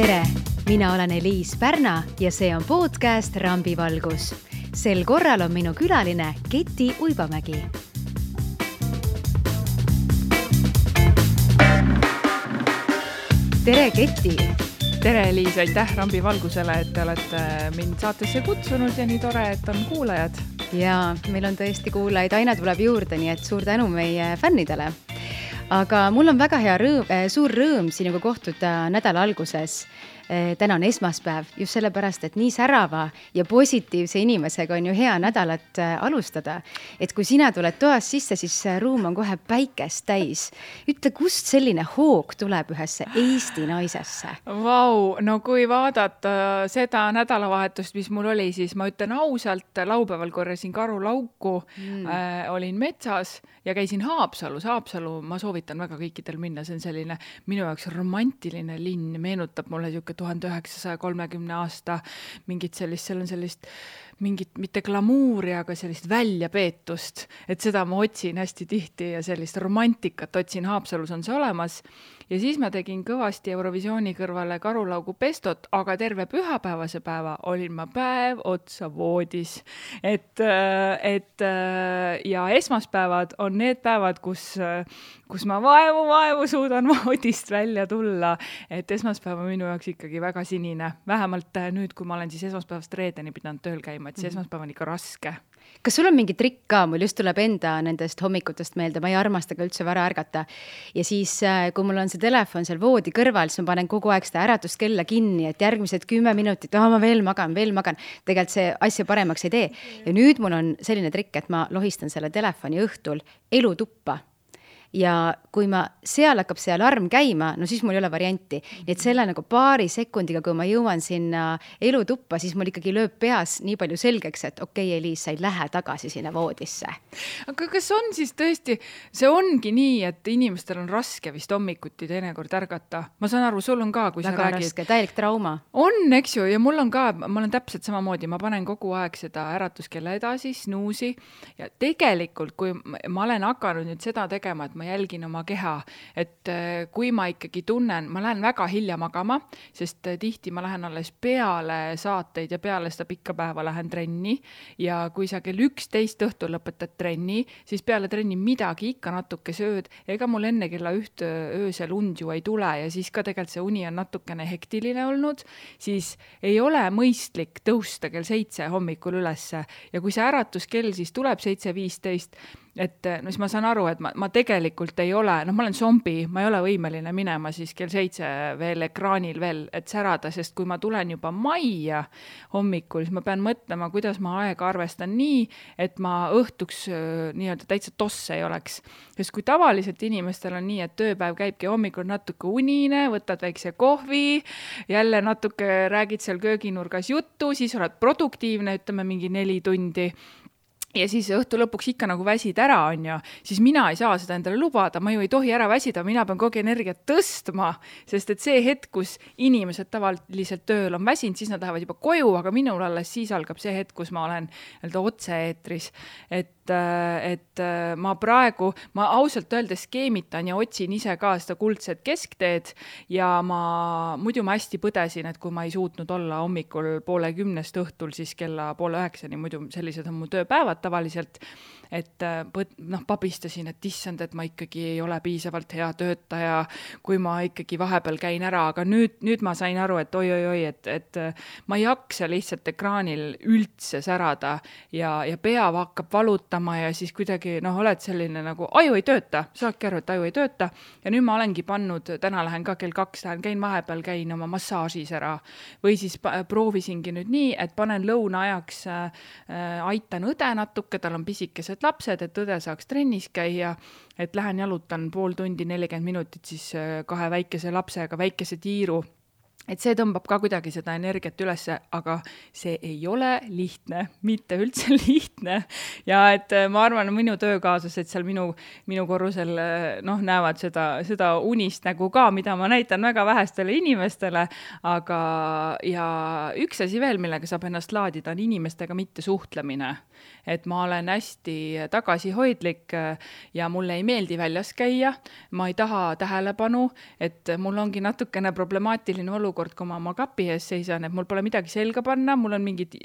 Tere! Mina olen Eliis Pärna ja see on podcast Rambivalgus. Sel korral on minu külaline Keti Uibamägi. Tere, Keti! Tere, Eliis! Aitäh Rambivalgusele, et te olete mind saatesse kutsunud ja nii tore, et on kuulajad. Jaa, meil on tõesti kuulajaid, aina tuleb juurde, nii et suur tänu meie fännidele. Aga mul on väga suur rõõm sinuga kohtuda nädala alguses. Täna on esmaspäev, just sellepärast, et nii särava ja positiivse inimesega on ju hea nädalat alustada. Et kui sina tuled toas sisse, siis ruum on kohe päikest täis. Ütle, kust selline hoog tuleb ühesse Eesti naisesse? Vau, no kui vaadata seda nädalavahetust, mis mul oli, siis ma ütlen ausalt, laupäeval korjasin karulauku, olin metsas ja käisin Haapsalus. Haapsalu ma soovitan väga kõikidel minna, see on selline minu jaoks romantiline linn, meenutab mulle 1930 aasta mingit sellist, seal on sellist mingit, mitte glamuuri, aga sellist väljapeetust, et seda ma otsin hästi tihti ja sellist romantikat otsin, Haapsalus on see olemas. Ja siis ma tegin kõvasti Eurovisiooni kõrvale karulaugu pestot, aga terve pühapäevase päeva olin ma päev otsa voodis. Ja esmaspäevad on need päevad, kus ma vaevu suudan voodist välja tulla. Et esmaspäev on minu jaoks ikkagi väga sinine. Vähemalt nüüd, kui ma olen siis esmaspäevast reedeni pidanud tööl käima, et see esmaspäev on ikka raske. Kas sul on mingi trikk ka? Mul just tuleb enda nendest hommikutest meelde, ma ei armasta ka üldse vara ärgata. Ja siis, kui mul on see telefon seal voodi kõrval, siis ma panen kogu aeg seda äratuskella kinni, et järgmised 10 minutit, ma veel magan. Tegelikult see asja paremaks ei tee. Ja nüüd mul on selline trikk, et ma lohistan selle telefoni õhtul elutuppa. Ja kui ma seal hakkab see alarm käima, no siis mul ei ole varianti. Nii et selle nagu paari sekundiga, kui ma jõuan sinna elutuppa, siis mul ikkagi lööb peas nii palju selgeks, et okei, Eliis, sa ei lähe tagasi sinna voodisse. Aga kas on siis tõesti, see ongi nii, et inimestel on raske vist hommikuti teinekord ärgata? Ma saan aru, sul on ka, kui väga sa räägid. Raske, täielik trauma. On, eks ju, ja mul on ka, ma olen täpselt samamoodi, ma panen kogu aeg seda äratuskella edasi, snuusi, ja tegelikult, kui ma olen hakanud nüüd seda tegema, et ma jälgin oma keha, et kui ma ikkagi tunnen, ma lähen väga hilja magama, sest tihti ma lähen alles peale saateid ja peale seda pikka päeva lähen trenni ja kui sa kell 11 õhtul lõpetad trenni, siis peale trenni midagi ikka natuke sööd, ega mul enne kella 1 öösel und ju ei tule ja siis ka tegelikult see uni on natukene hektiline olnud, siis ei ole mõistlik tõusta kell 7 hommikul ülesse ja kui see äratuskell siis tuleb 7:15, et no siis ma saan aru, et ma tegelikult ei ole, ma olen zombi, ma ei ole võimeline minema siis kell 7 veel ekraanil veel, et särada, sest kui ma tulen juba majja hommikul, siis ma pean mõtlema, kuidas ma aega arvestan nii, et ma õhtuks nii-öelda täitsa tosse ei oleks. Sest kui tavaliselt inimestel on nii, et tööpäev käibki hommikul natuke unine, võtad väikse kohvi, jälle natuke räägid seal kööginurgas juttu, siis oled produktiivne, ütleme mingi 4 tundi. Ja siis õhtu lõpuks ikka nagu väsid ära on ju, siis mina ei saa seda endale lubada, ma ju ei tohi ära väsida, mina pean kogu energiat tõstma, sest et see hetk, kus inimesed tavaliselt tööl on väsinud, siis nad lähevad juba koju, aga minul alles siis algab see hetk, kus ma olen otse-eetris, et ma praegu, ma ausalt öeldes skeemitan ja otsin ise ka seda kuldset keskteed ja muidu ma hästi põdesin, et kui ma ei suutnud olla hommikul 8:30 õhtul, siis kella 8:30, muidu sellised on mu tööpäevad tavaliselt, et pabistasin, et issand, et ma ikkagi ei ole piisavalt hea töötaja, kui ma ikkagi vahepeal käin ära, aga nüüd ma sain aru, et oi, et ma ei jaksa lihtsalt ekraanil üldse särada ja pea hakkab valutama ja siis kuidagi, oled selline nagu, aju ei tööta, saadki aru, et aju ei tööta ja nüüd ma olengi pannud, täna lähen ka kell 2, käin vahepeal, käin oma massaažis ära või siis proovisingi nüüd nii, et panen lõuna ajaks, aitan õde natuke, tal on pisikesed lapsed, et õde saaks trennis käia, et lähen jalutan pool tundi, 40 minutit siis 2 väikese lapsega, väikese tiiru. Et see tõmbab ka kuidagi seda energiat ülesse, aga see ei ole lihtne, mitte üldse lihtne. Ja et ma arvan, minu töökaaslased seal minu korrusel näevad seda unist nägu ka, mida ma näitan väga vähestele inimestele, aga ja üks asi veel, millega saab ennast laadida, on inimestega mitte suhtlemine. Et ma olen hästi tagasihoidlik ja mulle ei meeldi väljas käia, ma ei taha tähelepanu, et mul ongi natukene problemaatiline olukord olukord, kui ma oma kapi ees seisan, et mul pole midagi selga panna, mul on mingid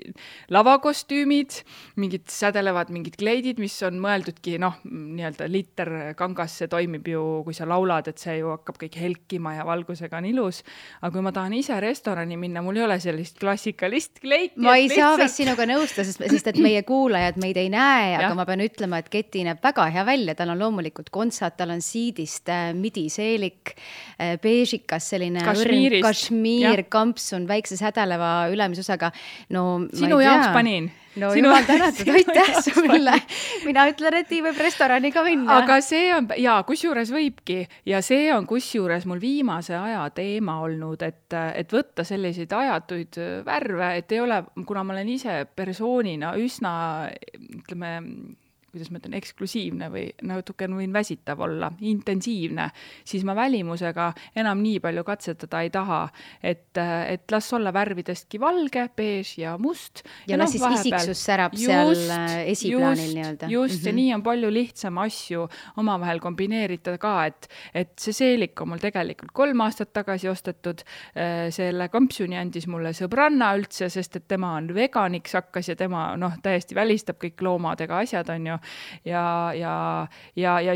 lavakostüümid, mingid sädelevad mingid kleidid, mis on mõeldudki, noh, nii-öelda liter kangas, see toimib ju, kui sa laulad, et see ju hakkab kõik helkima ja valgusega on ilus. Aga kui ma tahan ise restorani minna, mul ei ole sellist klassikalist kleiti. Ma ei saa vist sinuga nõusta, sest et meie kuulajad meid ei näe, aga ma pean ütlema, et keti näeb väga hea välja. Tal on loomulikult kontsad, tal on siidist midiseelik, beežikas, selline kašmiir, kampsun, väikse sädeleva ülemisosaga. No, sinu jaoks panin. No jumal tänatud, aitäh sulle. Mina ütlen, et võib restorani ka minna. Aga see on, jaa, kusjuures võibki, ja see on kusjuures mul viimase aja teema olnud, et võtta selliseid ajatuid värve, et ei ole, kuna ma olen ise persoonina üsna, ütleme, kuidas ma ütlen, eksklusiivne või natuke võin väsitav olla, intensiivne, siis ma välimusega enam nii palju katsetada ei taha, et las olla värvidestki valge, beež ja must. Ja las siis isiksus särab seal esiplaanil nii-öelda. Just, ja nii on palju lihtsam asju omavahel kombineerida ka, et see seelik on mul tegelikult 3 aastat tagasi ostetud, selle kampsuni andis mulle sõbranna üldse, sest et tema on veganiks hakkas ja tema täiesti välistab kõik loomadega asjad on ju. Ja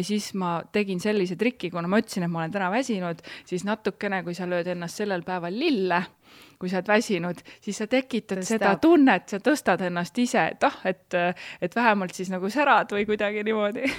siis ma tegin sellise trikki, kuna ma ütlesin, et ma olen täna väsinud, siis natukene, kui sa lööd ennast sellel päeval lille, kui sa oled väsinud, siis sa tekitad seda tunnet, sa tõstad ennast ise, et vähemalt siis nagu särad või kuidagi niimoodi.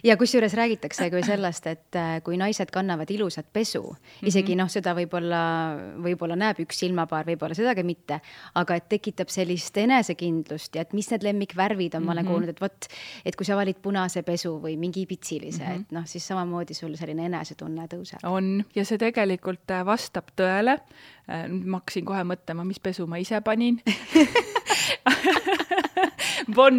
Ja kusjuures räägitakse kui sellest, et kui naised kannavad ilusat pesu, isegi seda võib-olla näeb üks silmapaar, võib-olla sedagi mitte, aga et tekitab sellist enesekindlust ja et mis need lemmikvärvid on, ma olen kuulnud, et kui sa valid punase pesu või mingi pitsilise, et siis samamoodi sul selline enesetunne tõuseb. On, ja see tegelikult vastab tõele. Ma hakkasin kohe mõtlema, mis pesu ma ise panin. Bon.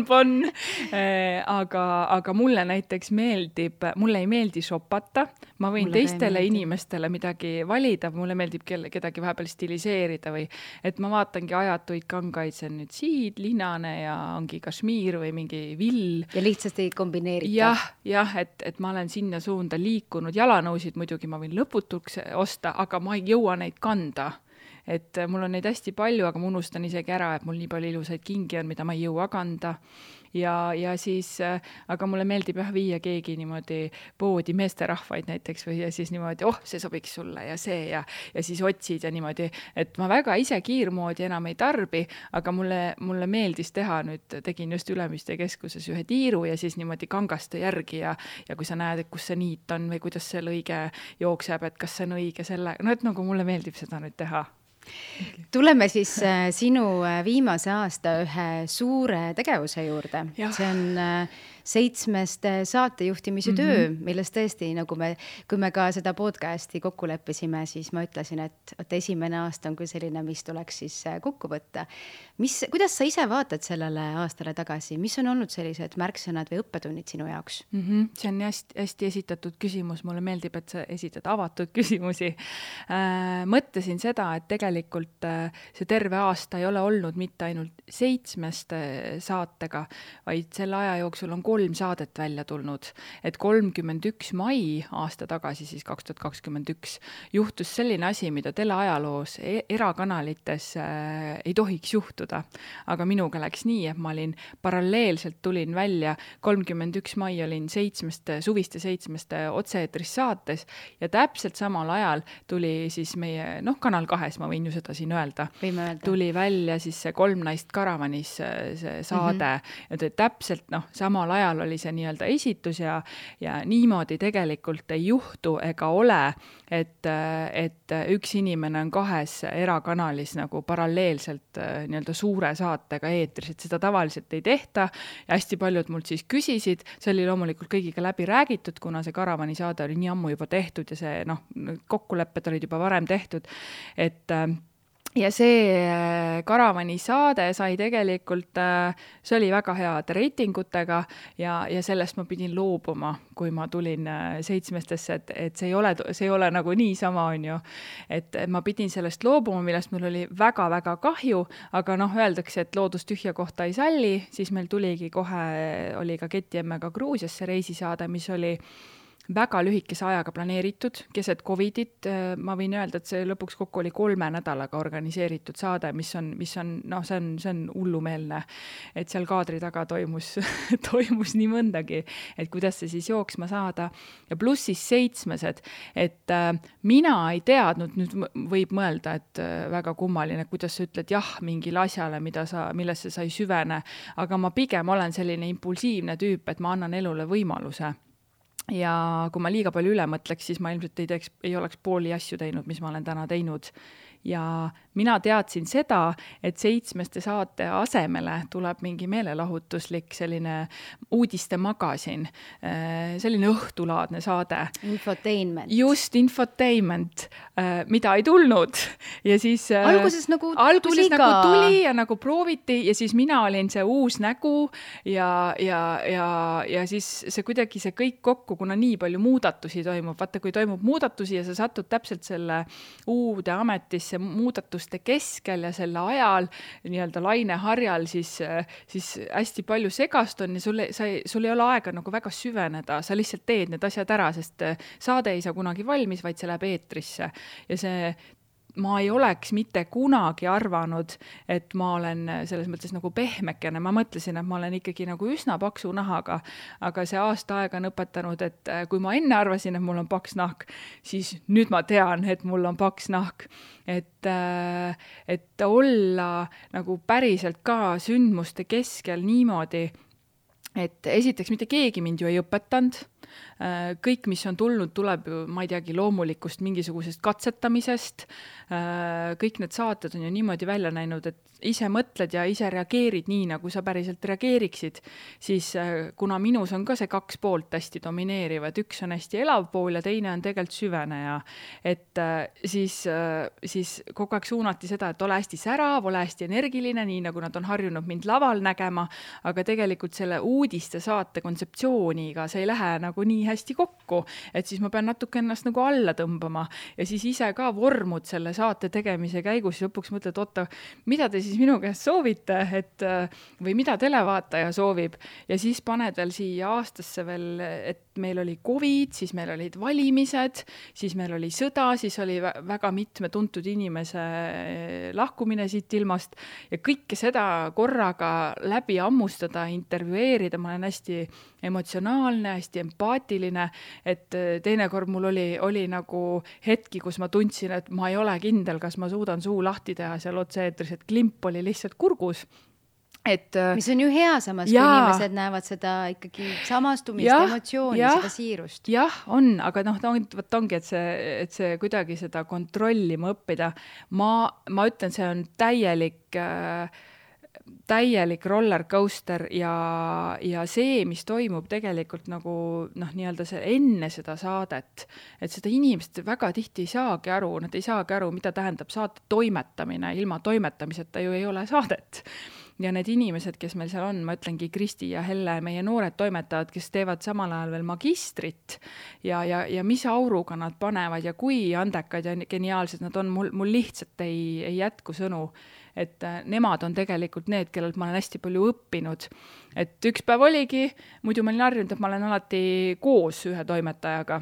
Aga mulle näiteks mulle ei meeldi shopata. Ma võin teistele inimestele midagi valida, mulle meeldib kedagi vahepeal stiliseerida või et ma vaatangi ajatuid kangaid, see on nüüd siid, linane ja ongi kašmiir või mingi vill. Ja lihtsasti kombineerida. Jah, et ma olen sinna suunda liikunud. Jalanõusid muidugi ma võin lõputuks osta, aga ma ei jõua neid kanda. Et mul on neid hästi palju, aga ma unustan isegi ära, et mul nii palju ilusaid kingi on, mida ma ei jõua kanda. Ja siis, aga mulle meeldib viia keegi niimoodi poodi meesterahvaid näiteks või ja siis niimoodi, see sobiks sulle ja see ja siis otsid ja niimoodi, et ma väga ise kiirmoodi enam ei tarbi, aga mulle meeldis teha nüüd, tegin just Ülemiste keskuses ühe tiiru ja siis niimoodi kangaste järgi ja kui sa näed, et kus see niit on või kuidas see lõige jookseb, et kas see on õige selle, et nagu mulle meeldib seda nüüd teha. Tuleme siis sinu viimase aasta ühe suure tegevuse juurde. See on 7 saatejuhtimise töö, millest tõesti, kui me ka seda podcasti kokku leppisime, siis ma ütlesin, et esimene aasta on küll selline, mis tuleks siis kokku võtta. Kuidas sa ise vaatad sellele aastale tagasi? Mis on olnud sellised märksõnad või õppetunnid sinu jaoks? See on hästi esitatud küsimus. Mulle meeldib, et sa esitad avatud küsimusi. Mõtlesin seda, et tegelikult see terve aasta ei ole olnud mitte ainult 7 saatega, vaid selle aja jooksul on 3 saadet välja tulnud, et 31. mai aasta tagasi, siis 2021, juhtus selline asi, mida teleajaloos erakanalites ei tohiks juhtuda. Aga minuga läks nii, et ma olin paralleelselt tulin välja, 31. mai olin suviste 7 otse-eetris saates ja täpselt samal ajal tuli siis meie, Kanal 2, ma võin ju seda siin öelda, tuli välja siis see 3 naist karavanis see saade ja täpselt samal ajal oli see nii-öelda esitus ja niimoodi tegelikult ei juhtu ega ole, et üks inimene on 2 erakanalis nagu paralleelselt nii-öelda suure saatega eetris, et seda tavaliselt ei tehta ja hästi paljud mult siis küsisid, see oli loomulikult kõigiga läbi räägitud, kuna see karavani saade oli nii ammu juba tehtud ja see kokkulepped olid juba varem tehtud, ja see karavani saade sai tegelikult, see oli väga head reitingutega ja sellest ma pidin loobuma, kui ma tulin 7-stesse, et see ei ole nagu niisama on ju, et ma pidin sellest loobuma, millest mul oli väga-väga kahju, aga öeldakse, et loodus tühja kohta ei salli, siis meil tuligi kohe, oli ka Keti emmega Gruusiasse reisisaade, mis oli väga lühikese ajaga planeeritud, keset Covidit, ma võin öelda, et see lõpuks kokku oli 3 nädalaga organiseeritud saade, mis on, noh, see on hullumeelne, et seal kaadri taga toimus nii mõndagi, et kuidas see siis jooksma saada. Ja pluss siis 7, et mina ei teadnud, nüüd võib mõelda, et väga kummaline, kuidas sa ütled jah mingile asjale, millesse sa ei süvene, aga ma pigem olen selline impulsiivne tüüp, et ma annan elule võimaluse. Ja kui ma liiga palju üle mõtleks, siis ma ilmselt ei oleks pooli asju teinud, mis ma olen täna teinud. Ja mina teadsin seda, et 7 saate asemele tuleb mingi meelelahutuslik selline uudistemagasin, selline õhtulaadne saade. Infotainment. Just, infotainment, mida ei tulnud. Ja siis alguses nagu tuli ja nagu prooviti ja siis mina olin see uus nägu ja siis see kuidagi see kõik kokku, kuna nii palju muudatusi toimub. Vaata, kui toimub muudatusi ja sa satud täpselt selle uude ametisse muudatuste keskel ja selle ajal nii-öelda laineharjal, siis hästi palju segast on ja sul ei ole aega nagu väga süveneda, sa lihtsalt teed need asjad ära, sest saade ei saa kunagi valmis, vaid see läheb eetrisse. Ja ma ei oleks mitte kunagi arvanud, et ma olen selles mõttes nagu pehmekene. Ma mõtlesin, et ma olen ikkagi nagu üsna paksu nahaga, aga see aasta aega on õpetanud, et kui ma enne arvasin, et mul on paks nahk, siis nüüd ma tean, et mul on paks nahk. Et olla nagu päriselt ka sündmuste keskel niimoodi, et esiteks mitte keegi mind ju ei õpetanud. Kõik, mis on tulnud, tuleb ju, ma ei teagi, loomulikust mingisugusest katsetamisest. Kõik need saated on ju niimoodi välja näinud, et ise mõtled ja ise reageerid nii, nagu sa päriselt reageeriksid, siis kuna minus on ka see 2 poolt hästi domineerivad, üks on hästi elav pool ja teine on tegelikult süveneja, et siis kogu aeg suunati seda, et ole hästi särav, ole hästi energiline, nii nagu nad on harjunud mind laval nägema, aga tegelikult selle uudiste saate kontseptsiooniga see ei lähe nagu nii hästi kokku, et siis ma pean natuke ennast nagu alla tõmbama ja siis ise ka vormud selle saate tegemise käigus ja lõpuks mõtled, oota, mida te siis minu käest soovite, või mida televaataja soovib ja siis paned veel siia aastasse veel, et meil oli Covid, siis meil olid valimised, siis meil oli sõda, siis oli väga mitme tuntud inimese lahkumine siit ilmast ja kõike seda korraga läbi ammustada, intervjueerida, ma olen hästi emotsionaalne, hästi empaatiline, et teinekord mul oli nagu hetki, kus ma tundsin, et ma ei ole kindel, kas ma suudan suu lahti teha seal otse-eetris, et klimp oli lihtsalt kurgus. Mis on ju hea samas, kui inimesed näevad seda ikkagi samastumist, emotsiooni, seda siirust. Jah, on, aga ongi, et see kuidagi seda kontrollima õppida. Ma ütlen, see on täielik rollercoaster ja see, mis toimub tegelikult nagu nii-öelda enne seda saadet, et seda inimesed väga tihti ei saagi aru, nad ei saagi aru, mida tähendab saate toimetamine, ilma toimetamiseta ju ei ole saadet. Ja need inimesed, kes meil seal on, ma ütlengi Kristi ja Helle, meie noored toimetajad, kes teevad samal ajal veel magistrit ja mis auruga nad panevad ja kui andekad ja geniaalsed nad on, mul lihtsalt ei jätku sõnu, et nemad on tegelikult need, kellelt ma olen hästi palju õppinud. Et üks päev oligi, muidu ma olin harjunud, et ma olen alati koos ühe toimetajaga.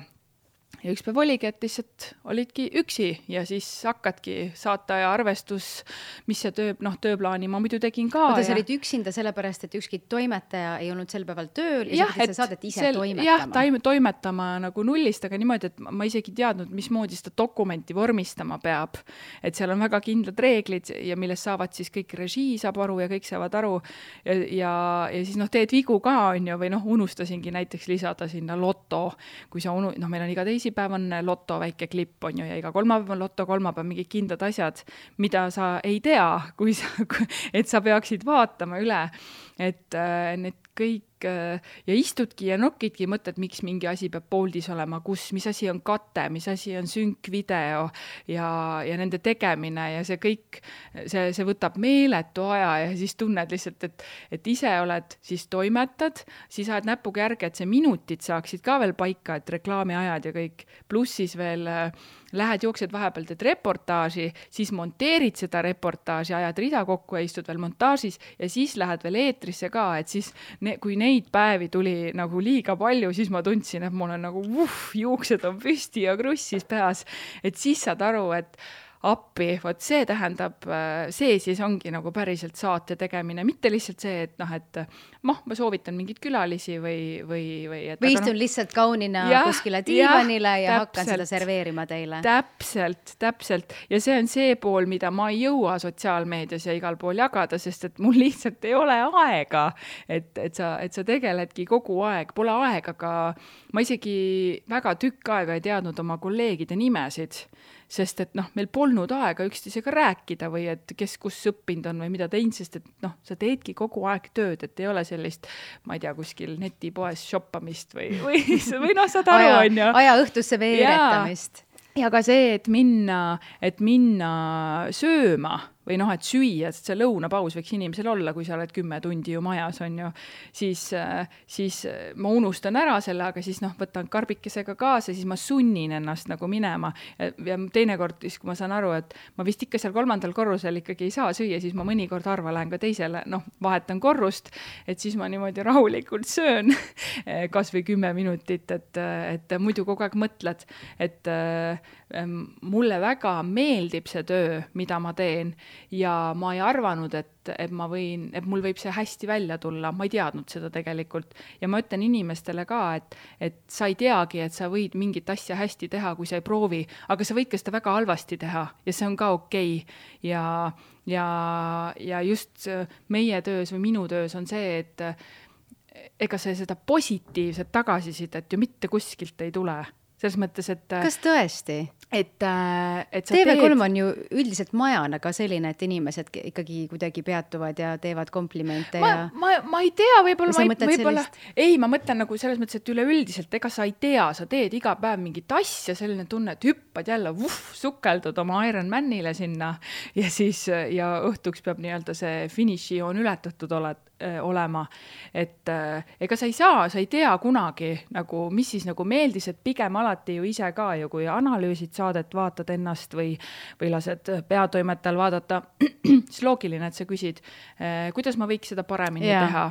Ja üks päev oligi, et lihtsalt olidki üksi ja siis hakkadki saata ja arvestus, mis see tööplaani ma muidu tegin ka. Oda, sa olid üksinda sellepärast, et ükski toimetaja ei olnud sel päeval tööl ja sa saadet ise toimetama. Jah, toimetama nagu nullist, aga niimoodi, et ma isegi teadnud, mismoodi seda dokumenti vormistama peab. Et seal on väga kindlad reeglid ja millest saavad siis kõik režii saab aru ja kõik saavad aru ja siis teed vigu ka on ju, või unustasingi näiteks lisada sinna loto, kui sa meil on iga teisipäev on loto väike klipp on ju ja iga kolmapäev on loto, kolmapäev mingid kindlad asjad, mida sa ei tea, et sa peaksid vaatama üle, et need kõik ja istudki ja nokidki mõtled, miks mingi asi peab pooldis olema, mis asi on kate, mis asi on synkvideo ja nende tegemine ja see kõik, see võtab meeletu aja ja siis tunned lihtsalt, et ise oled, siis toimetad, siis ajad näpuga järge, et see minutid saaksid ka veel paika, et reklaamiajad ja kõik, pluss siis veel lähed, jooksed vahepeal, teed reportaaži, siis monteerid seda reportaaži, ajad rida kokku ja istud veel montaažis ja siis lähed veel eetrisse ka, et siis kui neid päevi tuli nagu liiga palju, siis ma tundsin, et mul on nagu juuksed on püsti ja krussis peas, et siis saad aru, et appi, vot see tähendab, see siis ongi nagu päriselt saate tegemine, mitte lihtsalt see, et et ma soovitan mingit külalisi või istun lihtsalt kaunina kuskile diivanile ja hakkan seda serveerima teile. Täpselt. Ja see on see pool, mida ma ei jõua sotsiaalmeedias ja igal pool jagada, sest et mul lihtsalt ei ole aega, et sa tegeledki kogu aeg, pole aega ka, ma isegi väga tükk aega ei teadnud oma kolleegide nimesid, sest et meil polnud aega üksteisega rääkida või et kes kus õppinud on või mida teinud, sest et sa teedki kogu aeg tööd, et ei ole sellist, ma ei tea, kuskil netipoes shoppamist või saad aru, on ju. Aja õhtusse veeretamist. Ja ka see, et minna sööma või et süüa, sest see lõunapaus võiks inimesel olla, kui sa oled 10 tundi ju majas, on ju, siis ma unustan ära selle, aga siis võtan karbikesega kaasa, siis ma sunnin ennast nagu minema. Ja teinekord, kui ma saan aru, et ma vist ikka seal 3. korrusel ikkagi ei saa süüa, siis ma mõnikord harva lähen ka teisele, vahetan korrust, et siis ma niimoodi rahulikult söön kas või 10 minutit, et muidu kogu aeg mõtled, et mulle väga meeldib see töö, mida ma teen, ja ma ei arvanud, et mul võib see hästi välja tulla, ma ei teadnud seda tegelikult. Ja ma ütlen inimestele ka, et sa ei teagi, et sa võid mingit asja hästi teha, kui sa ei proovi, aga sa võid ka seda väga halvasti teha ja see on ka okei. Ja just meie töös või minu töös on see, et ega see seda positiivset tagasisidet ju mitte kuskilt ei tule. Selles mõttes, et... Kas tõesti? Et TV3 on ju üldiselt majana ka selline, et inimesed ikkagi kuidagi peatuvad ja teevad komplimente ma ei tea, võib-olla ei, ma mõtlen nagu selles mõttes, et üleüldiselt, ega sa ei tea, sa teed iga päev mingit asja, selline tunne, et hüppad jälle, sukeldud oma Ironmanile sinna ja siis ja õhtuks peab nii-öelda see finišijoon ületatud olema, et ega sa ei tea kunagi nagu, mis siis nagu meeldis, et pigem alati ju ise ka ju, kui analüüsid saadet, vaatad ennast või lased peatoimetajal vaadata, siis loogiline, et sa küsid, kuidas ma võiks seda paremini teha.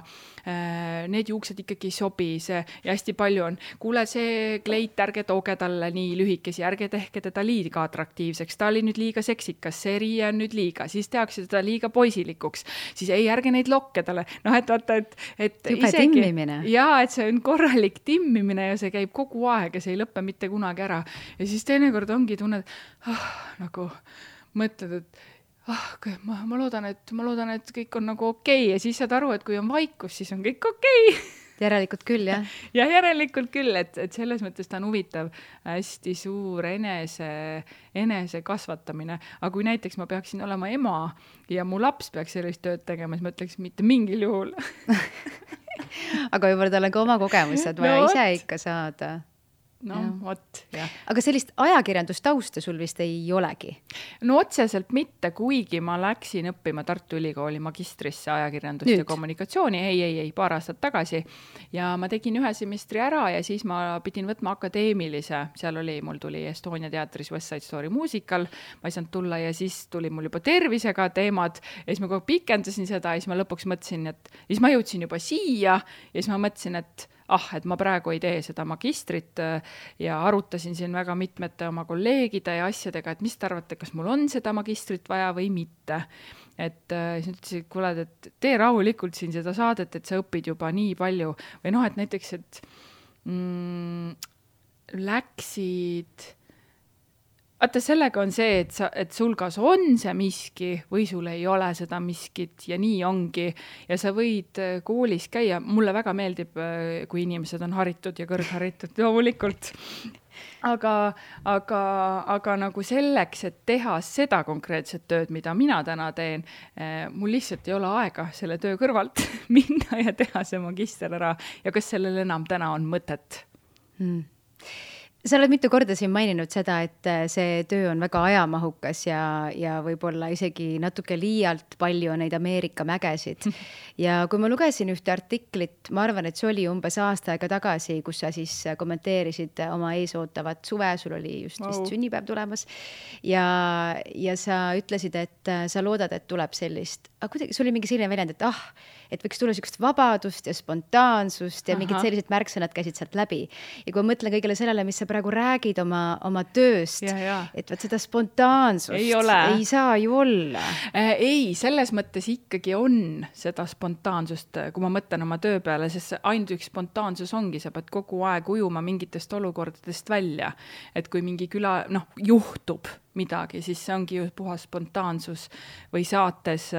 Need juuksed ikkagi ei sobi, ja hästi palju on, kuule see kleit, ärge tooge talle nii lühikesi, ärge tehke teda liiga atraktiivseks, ta oli nüüd liiga seksikas, see riie on nüüd liiga, siis tehakse teda liiga poisilikuks, siis ei, ärge neid lokke talle, et vaata, et juba isegi, timmimine. Jaa, et see on korralik timmimine ja see käib kogu aeg ja see ei lõppe mitte kunagi ära. Ja siis teinekord ongi tunned, nagu mõtled, et ma loodan, et kõik on nagu okei. Ja siis saad aru, et kui on vaikus, siis on kõik okei. Järelikult küll, jah? Ja järelikult küll, et selles mõttes ta on huvitav, hästi suur enese kasvatamine. Aga kui näiteks ma peaksin olema ema ja mu laps peaks sellist tööd tegema, siis ma ütleks mitte mingil juhul. Aga võib-olla tal on ka oma kogemused vaja ise ikka saada. Vot, jah. Aga sellist ajakirjandustausta sul vist ei olegi? No otseselt mitte, kuigi ma läksin õppima Tartu Ülikooli magistrisse ajakirjandust ja kommunikatsiooni, ei, paar aastat tagasi. Ja ma tegin 1 semestri ära ja siis ma pidin võtma akadeemilise, mul tuli Estonia teatris West Side Story muusikal, ma ei saanud tulla ja siis tuli mul juba tervisega teemad ja siis ma kogu pikendasin seda ja siis ma lõpuks mõtlesin, et siis ma jõudsin juba siia ja siis ma mõtlesin, et ma praegu ei tee seda magistrit ja arutasin siin väga mitmete oma kolleegide ja asjadega, et mis te arvate, kas mul on seda magistrit vaja või mitte. Et siis ütlesin, kuule, et tee rahulikult siin seda saadet, et sa õpid juba nii palju. Või et näiteks, et läksid... Vaata, sellega on see, et sul kas on see miski või sul ei ole seda miskit ja nii ongi. Ja sa võid koolis käia. Mulle väga meeldib, kui inimesed on haritud ja kõrgharitud, loomulikult. Aga nagu selleks, et teha seda konkreetset tööd, mida mina täna teen, mul lihtsalt ei ole aega selle töö kõrvalt minna ja teha see magister ära. Ja kas sellel enam täna on mõtet? Sa oled mitu korda siin maininud seda, et see töö on väga ajamahukas ja võib-olla isegi natuke liialt palju on neid Ameerika mägesid. Ja kui ma lugesin ühte artiklit, ma arvan, et see oli umbes aasta aega tagasi, kus sa siis kommenteerisid oma eesootavat suve, sul oli just vist sünnipäev tulemas. Ja sa ütlesid, et sa loodad, et tuleb sellist aga kuidagi, sul oli mingi selline väljend, et võiks tulla sellist vabadust ja spontaansust ja mingid sellised märksõnad käisid sealt läbi. Ja kui ma mõtlen kõigele sellele, mis sa praegu räägid oma tööst, et võt seda spontaansust ei saa ju olla. Ei, selles mõttes ikkagi on seda spontaansust, kui ma mõtlen oma töö peale, sest ainult üks spontaansus ongi, sa pead kogu aeg ujuma mingitest olukordadest välja. Et kui mingi juhtub midagi, siis see ongi ju puhas spontaansus või saates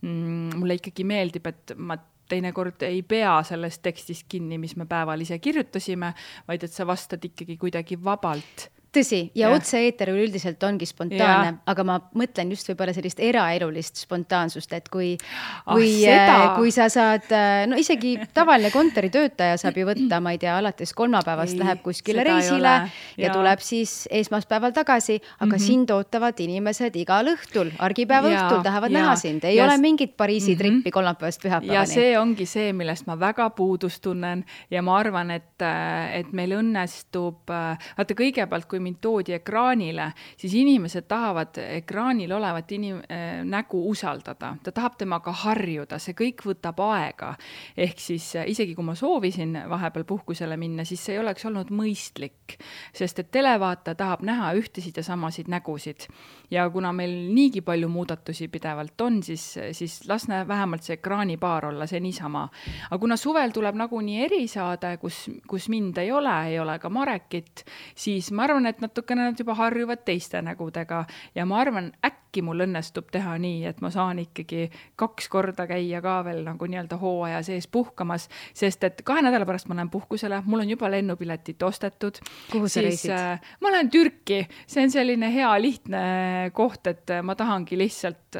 mulle ikkagi meeldib, et ma teinekord ei pea sellest tekstist kinni, mis me päeval ise kirjutasime, vaid et sa vastad ikkagi kuidagi vabalt. Tõsi, ja otse-eeter üldiselt ongi spontaanne, aga ma mõtlen just võib-olla sellist eraelulist spontaansust, et kui sa saad, no isegi tavaline kontoritöötaja saab ju võtta, ma ei tea, alates kolmapäevast läheb kuskile reisile ja tuleb siis esmaspäeval tagasi, aga sind ootavad inimesed igal õhtul, argipäeva õhtul tahavad näha sind, ei ole mingit Pariisi trippi kolmapäevast pühapäevani. Ja see ongi see, millest ma väga puudust tunnen ja ma arvan, et meil õnnestub, vaata kõigepealt, kui mind toodi ekraanile, siis inimesed tahavad ekraanil olevat nägu usaldada. Ta tahab temaga harjuda, see kõik võtab aega. Ehk siis isegi kui ma soovisin vahepeal puhkusele minna, siis see ei oleks olnud mõistlik, sest et televaata tahab näha ühtesid ja samasid nägusid. Ja kuna meil niigi palju muudatusi pidevalt on, siis lasne vähemalt see ekraanipaar olla, see niisama. Aga kuna suvel tuleb nagunii erisaade, kus mind ei ole ka Marekit, siis ma arvan, et natukene nad juba harjuvad teiste nägudega ja ma arvan, äkki mul õnnestub teha nii, et ma saan ikkagi 2 korda käia ka veel nagu nii-öelda hooaja sees puhkamas, sest et 2 nädala pärast ma lähen puhkusele, mul on juba lennupiletit ostetud. Kuhu sa reisid? Ma lähen Türki, see on selline hea lihtne koht, et ma tahangi lihtsalt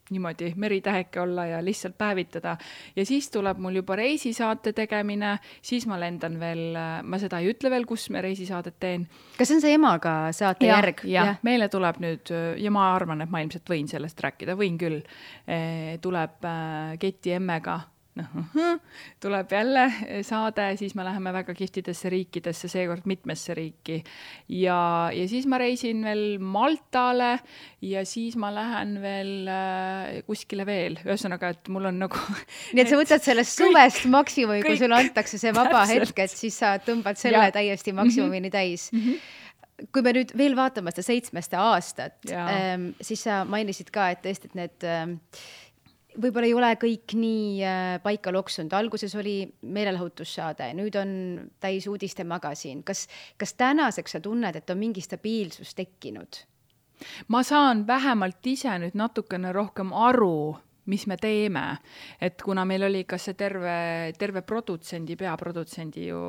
niimoodi meritäheke olla ja lihtsalt päevitada. Ja siis tuleb mul juba reisisaate tegemine, siis ma lendan veel, ma seda ei ütle veel, kus me reisisaadet teen. Kas see on see emaga saate järg? Ja, meile tuleb nüüd, ja ma arvan, et ma ilmselt võin sellest rääkida, võin küll, tuleb Keti emmega, tuleb jälle saade, siis me läheme väga kihvtidesse riikidesse, seekord mitmesse riiki ja siis ma reisin veel Maltale ja siis ma lähen veel kuskile veel, ühesõnaga, et mul on nagu nii et sa võtad sellest suvest maksimumi, kui sulle antakse see vaba hetk, et siis sa tõmbad selle täiesti maksimumini täis. Kui me nüüd veel vaatame seda 7. aastat, siis sa mainisid ka, et tõesti, et need võib-olla ei ole kõik nii paika loksunud. Alguses oli meelelahutussaade, nüüd on täis uudiste magasin. Kas tänaseks sa tunned, et on mingi stabiilsus tekkinud? Ma saan vähemalt ise nüüd natukene rohkem aru, mis me teeme. Et kuna meil oli ka see terve peaprodutsendi ju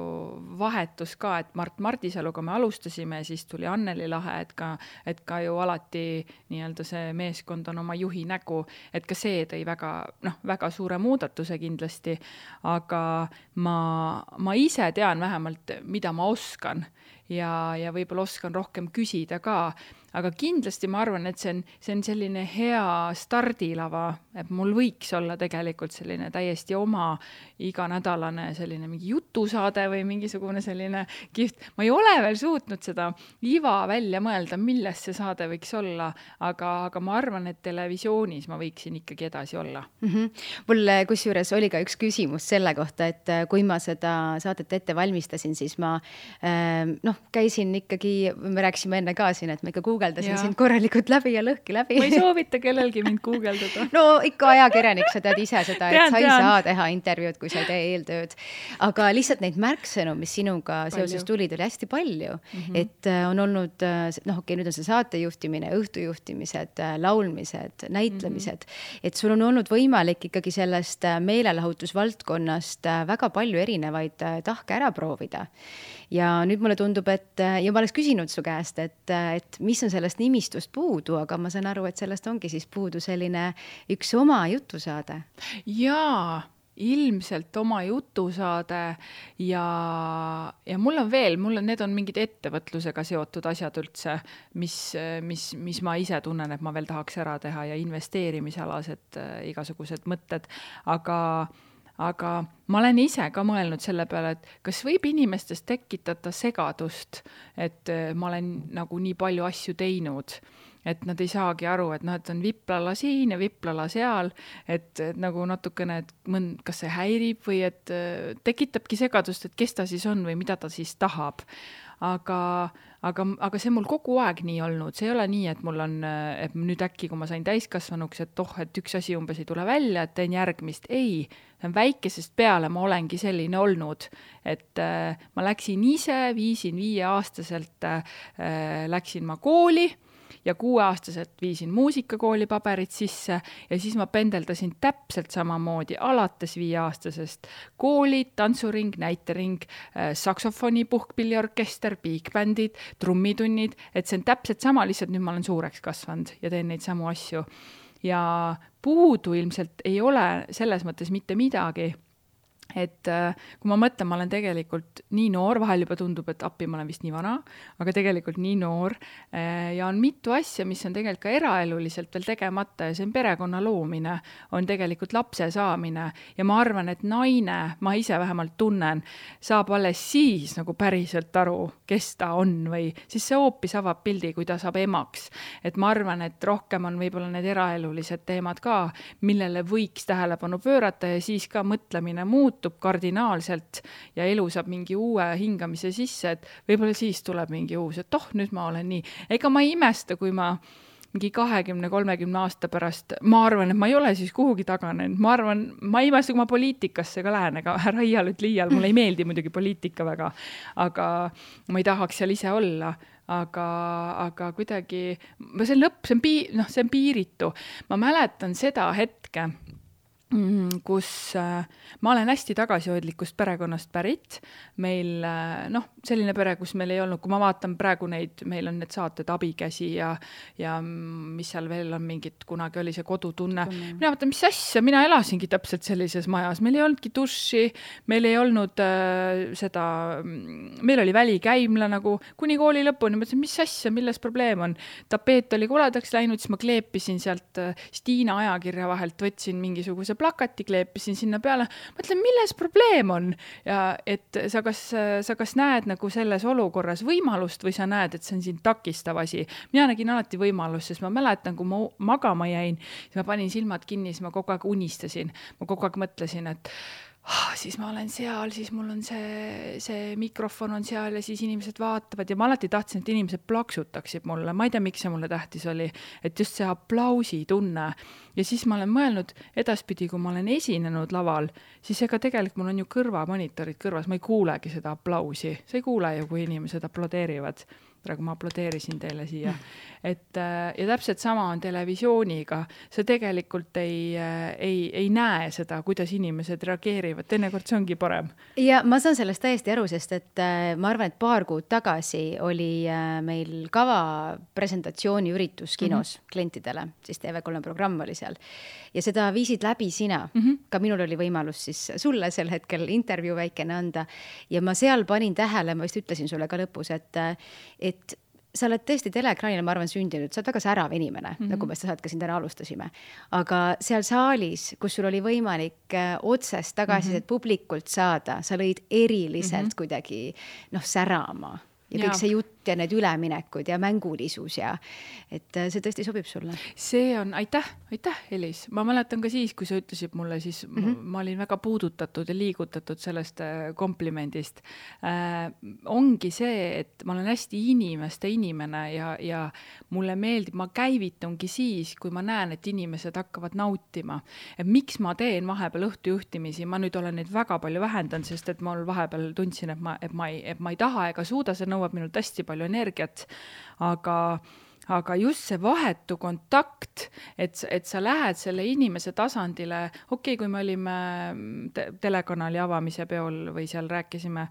vahetus ka, et Mart Martisaluga me alustasime, siis tuli Anneli Lahe, et ka ju alati nii-öelda see meeskond on oma juhi nägu, et ka see tõi väga suure muudatuse kindlasti, aga ma ise tean vähemalt, mida ma oskan ja võib-olla oskan rohkem küsida ka, aga kindlasti ma arvan, et see on selline hea stardilava, et mul võiks olla tegelikult selline täiesti oma iganädalane selline mingi jutusaade või mingisugune selline kihvt. Ma ei ole veel suutnud seda iva välja mõelda, milles see saade võiks olla, aga ma arvan, et televisioonis ma võiksin ikkagi edasi olla. Mul kusjuures oli ka üks küsimus selle kohta, et kui ma seda saadet ette valmistasin, siis ma käisin ikkagi, me rääkisime enne ka siin, et ma ikka guugeldasin sind korralikult läbi ja lõhki läbi. Ma ei soovita kellelgi mind guugeldada. No ikka ajakirjanik, sa tead ise seda, et sa ei saa teha intervjuud, kui sa ei tee eeltööd. Aga lihtsalt neid märksõnu, mis sinuga seoses tulid, oli hästi palju. Et on olnud, nüüd on see saatejuhtimine, õhtujuhtimised, laulmised, näitlemised. Et sul on olnud võimalik ikkagi sellest meelelahutusvaldkonnast väga palju erinevaid tahke ära proovida. Ja nüüd mulle tundub, ja ma oleks küsinud su käest, et mis on sellest nimistust puudu, aga ma saan aru, et sellest ongi siis puudu selline üks oma jutusaade. Jaa, ilmselt oma jutusaade ja mul on need on mingid ettevõtlusega seotud asjad üldse, mis ma ise tunnen, et ma veel tahaks ära teha ja investeerimisalased igasugused mõtted, aga ma olen ise ka mõelnud selle peale, et kas võib inimestest tekitada segadust, et ma olen nagu nii palju asju teinud, et nad ei saagi aru, et noh, et on viplala siin ja viplala seal, et nagu natukene, et kas see häirib või et tekitabki segadust, et kes ta siis on või mida ta siis tahab. Aga see mul kogu aeg nii olnud, see ei ole nii, et mul on, et nüüd äkki, kui ma sain täiskasvanuks, et et üks asi umbes ei tule välja, et teen järgmist. Ei, väikesest peale ma olengi selline olnud, et ma läksin ise, viisin 5-aastaselt, läksin ma kooli ja 6-aastaselt viisin muusikakooli paberid sisse ja siis ma pendeldasin täpselt samamoodi alates 5-aastasest koolid, tantsuring, näitering, saksofoni, puhkpilliorkester, bigbändid, trummitunnid, et see on täpselt sama, lihtsalt nüüd ma olen suureks kasvanud ja teen neid samu asju. Ja puudu ilmselt ei ole selles mõttes mitte midagi, et kui ma mõtlen, ma olen tegelikult nii noor, vahel juba tundub, et appi ma olen vist nii vana, aga tegelikult nii noor ja on mitu asja, mis on tegelikult ka eraeluliselt veel tegemata ja see on perekonna loomine, on tegelikult lapse saamine ja ma arvan, et naine, ma ise vähemalt tunnen, saab alles siis nagu päriselt aru, kes ta on või siis see hoopis avab pildi, kui ta saab emaks. Et ma arvan, et rohkem on võib-olla need eraelulised teemad ka, millele võiks tähelepanu pöörata ja siis ka mõtlemine muutub kardinaalselt ja elu saab mingi uue hingamise sisse, et võib-olla siis tuleb mingi uus, et nüüd ma olen nii. Ega ma ei imesta, kui ma mingi 20-30 aasta pärast, ma arvan, et ma ei ole siis kuhugi taganenud. Ma ei imesta, kui ma poliitikasse ka lähen, aga ära iial, mulle ei meeldi muidugi poliitika väga, aga ma ei tahaks seal ise olla. Aga kuidagi, see lõpp, see on piiritu. Ma mäletan seda hetke, kus ma olen hästi tagasihoidlikust perekonnast pärit. Meil, selline pere, kus meil ei olnud, kui ma vaatan praegu neid, meil on need saated Abikäsi ja mis seal veel on mingid, kunagi oli see kodutunne. Mina vaatan, mis asja, mina elasingi täpselt sellises majas. Meil ei olnudki duši, meil ei olnud meil oli välikäimla nagu kuni kooli lõpuni. Ma mõtlesin, mis asja, milles probleem on? Tapeet oli koledaks läinud, siis ma kleepisin sealt Stiina ajakirja vahelt, võtsin mingisuguse plakati, kleepisin sinna peale. Mõtlen, milles probleem on? Ja et sa kas näed nagu selles olukorras võimalust või sa näed, et see on siin takistav asi. Mina nägin alati võimalust, sest ma mäletan, kui ma magama jäin, siis ma panin silmad kinni, siis ma kogu aeg unistasin. Ma kogu aeg mõtlesin, et siis ma olen seal, siis mul on see mikrofon on seal ja siis inimesed vaatavad ja ma alati tahtsin, et inimesed plaksutaksid mulle. Ma ei tea, miks see mulle tähtis oli, et just see aplausi tunne. Ja siis ma olen mõelnud edaspidi, kui ma olen esinenud laval, siis ega tegelikult mul on ju kõrvamonitorid kõrvas, ma ei kuulegi seda aplausi. Sa ei kuule ju, kui inimesed aplodeerivad. Praegu ma aplodeerisin teile siia. Ja täpselt sama on televisiooniga. See tegelikult ei näe seda, kuidas inimesed reageerivad. Teinekord see ongi parem. Ja ma saan sellest täiesti aru, sest et ma arvan, et paar kuud tagasi oli meil kava presentatsiooni üritus kinos klientidele, siis TV3 programm oli seal. Ja seda viisid läbi sina. Ka minul oli võimalus siis sulle sel hetkel intervjuu väikene anda. Ja ma seal panin tähele, ma vist ütlesin sulle ka lõpus, et sa oled tõesti teleekraanile, ma arvan, sündinud, sa oled väga särav inimene, nagu me seda ka siin täna alustasime. Aga seal saalis, kus sul oli võimalik otsest tagasisidet publikult saada, sa lõid eriliselt kuidagi särama. Ja kõik see jutt ja need üleminekud ja mängulisus ja et see tõesti sobib sulle. See on, aitäh, Elis. Ma mäletan ka siis, kui sa ütlesid mulle, siis ma olin väga puudutatud ja liigutatud sellest komplimendist. Ongi see, et ma olen hästi inimeste inimene ja mulle meeldib, ma käivitungi siis, kui ma näen, et inimesed hakkavad nautima. Et miks ma teen vahepeal õhtujuhtimisi? Ma nüüd olen neid väga palju vähendanud, sest et ma vahepeal tundsin, et ma ei taha ega suuda, see nõuab minult hästi palju energiat, aga just see vahetu kontakt, et sa lähed selle inimese tasandile, okei, kui me olime telekanali avamise peol või seal rääkisime,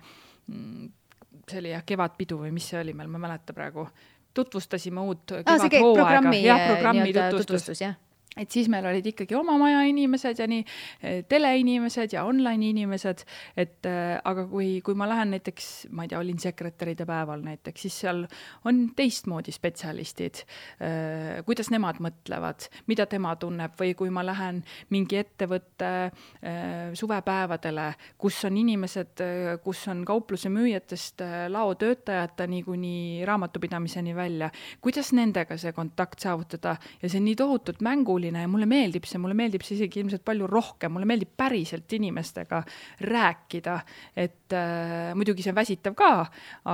see oli kevadpidu või mis see oli meil, ma mäleta praegu, tutvustasime uut kevadhooaega. Programmi tutvustus, jah. et siis meil olid ikkagi oma maja inimesed ja nii teleinimesed ja online inimesed, et aga kui ma lähen näiteks, ma ei tea, olin sekretäride päeval näiteks, siis seal on teistmoodi spetsialistid, kuidas nemad mõtlevad, mida tema tunneb, või kui ma lähen mingi ettevõtte suvepäevadele, kus on inimesed, kus on kaupluse müüjatest laotöötajateni kuni raamatupidamiseni välja, kuidas nendega see kontakt saavutada ja see on nii tohutult mänguline ja mulle meeldib see isegi ilmselt palju rohkem, mulle meeldib päriselt inimestega rääkida, et muidugi see on väsitav ka,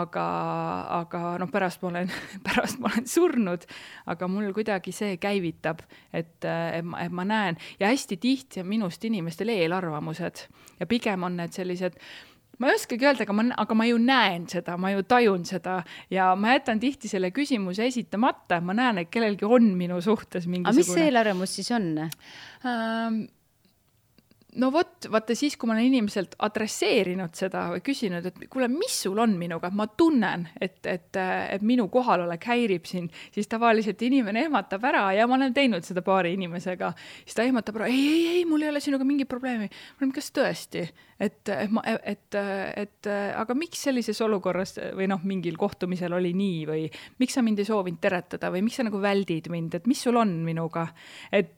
aga noh, pärast ma olen surnud, aga mul kuidagi see käivitab, et ma näen ja hästi tihti on minust inimestel eelarvamused ja pigem on need sellised, ma ei oskagi öelda, aga ma ju näen seda, ma ju tajun seda ja ma jätan tihti selle küsimuse esitamata, ma näen, et kellelgi on minu suhtes mingisugune. Aga mis see eelarvamus siis on? No vaata siis, kui ma olen inimeselt adresseerinud seda või küsinud, et kuule, mis sul on minuga, ma tunnen, et minu kohalolek häirib sind, siis tavaliselt inimene ehmatab ära ja ma olen teinud seda paari inimesega, siis ta ehmatab ära, ei, mul ei ole sinuga mingi probleemi. Ma olen, kas tõesti? Aga miks sellises olukorras või noh, mingil kohtumisel oli nii või miks sa mind ei soovinud teretada või miks sa nagu väldid mind, et mis sul on minuga? Et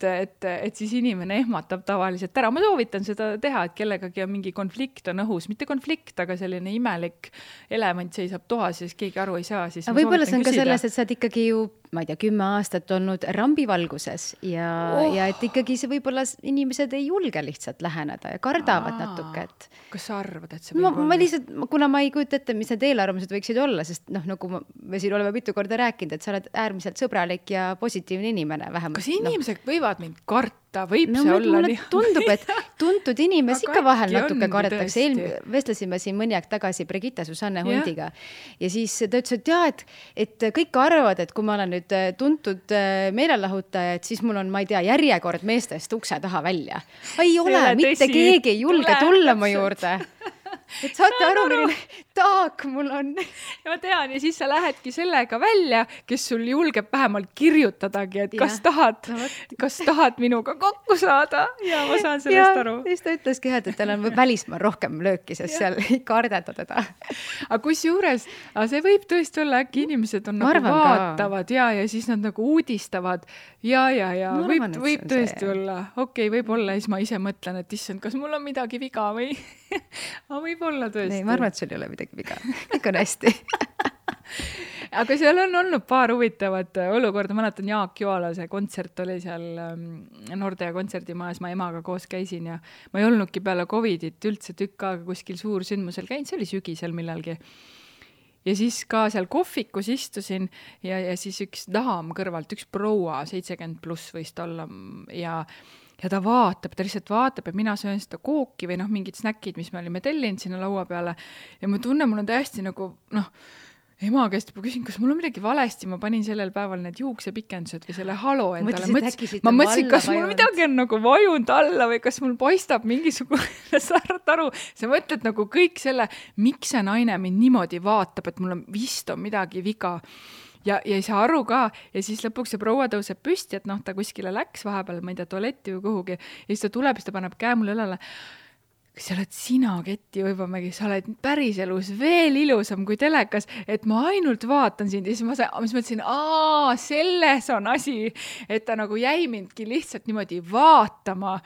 siis inimene ehmatab tavaliselt ära. Ma soovitan seda teha, et kellegagi on mingi konflikt on õhus, mitte konflikt, aga selline imelik element seisab toas ja siis keegi aru ei saa. Siis võib-olla see on ka selles, et sa oled ikkagi ju, ma ei tea, 10 aastat olnud rambivalguses ja et ikkagi see võib-olla inimesed ei julge lihtsalt läheneda ja kardavad natuke. Kas sa arvad, et see võib olla? Ma lihtsalt, kuna ma ei kujuta ette, mis need eelarvamused võiksid olla, sest noh, nagu me siin oleme mitu korda rääkinud, et sa oled äärmiselt sõbralik ja positiivne inimene vähemalt. Kas inimesed võivad mind karta? Võib see olla nii? Tundub, et tuntud inimesi ikka vahel natuke kardetakse. Vestlesime siin mõni aeg tagasi Brigitte Susanne hundiga ja siis ta ütles, et jaa, et kõik arvavad, et kui ma olen nüüd tuntud meelelahutaja, et siis mul on, ma ei tea, järjekord meestest ukse taha välja. Ei ole, mitte keegi ei julge tulla mu juurde. Et saate aru, milline taak mul on. Ja ma tean, ja siis sa lähedki sellega välja, kes sul julgeb vähemalt kirjutadagi, et kas tahad minuga kokku saada ja ma saan sellest aru. Ja siis ta ütleski, et tal on välismaal rohkem lööki, sest seal ei kardeta teda. Aga kusjuures, see võib tõesti olla, äkki inimesed on nagu vaatavad ja siis nad nagu uudistavad ja võib tõesti olla. Okei, võib olla, siis ma ise mõtlen, et issand, kas mul on midagi viga või võib olla tõesti. Ei, ma arvan, et sul ei ole midagi viga. Kõik on hästi. Aga seal on olnud paar huvitavat olukorda. Ma mäletan, Jaak Joalase kontsert oli seal Nordea kontserdimajas. Ma emaga koos käisin ja ma ei olnudki peale Covidit üldse tükk aega kuskil suursündmusel käinud. See oli sügisel millalgi. Ja siis ka seal kohvikus istusin ja siis üks daam kõrvalt, üks proua, 70 pluss võist olla ja ta lihtsalt vaatab ja mina söön seda kooki või mingid snäkid, mis me olime tellinud sinna laua peale ja ma tunnen, mul on täiesti nagu, ema käest juba küsin, kas mul on midagi valesti, ma panin sellel päeval need juuksepikendused või selle halo endale. Ma mõtlesin, kas mul midagi on nagu vajunud alla või kas mul paistab mingisugune saart aru. Sa mõtled nagu kõik selle, miks see naine mind niimoodi vaatab, et mul on vist on midagi viga. Ja ei saa aru ka ja siis lõpuks see proua tõuseb püsti, et ta kuskile läks vahepeal, ma ei tea, tualetti või kuhugi ja siis ta tuleb, siis ta paneb käe mulle õlale. Kas sa oled sina, Ketti Uibomägi, sa oled päris elus veel ilusam kui telekas, et ma ainult vaatan sind ja siis ma mõtlesin, selles on asi, et ta nagu jäi mindki lihtsalt niimoodi vaatama,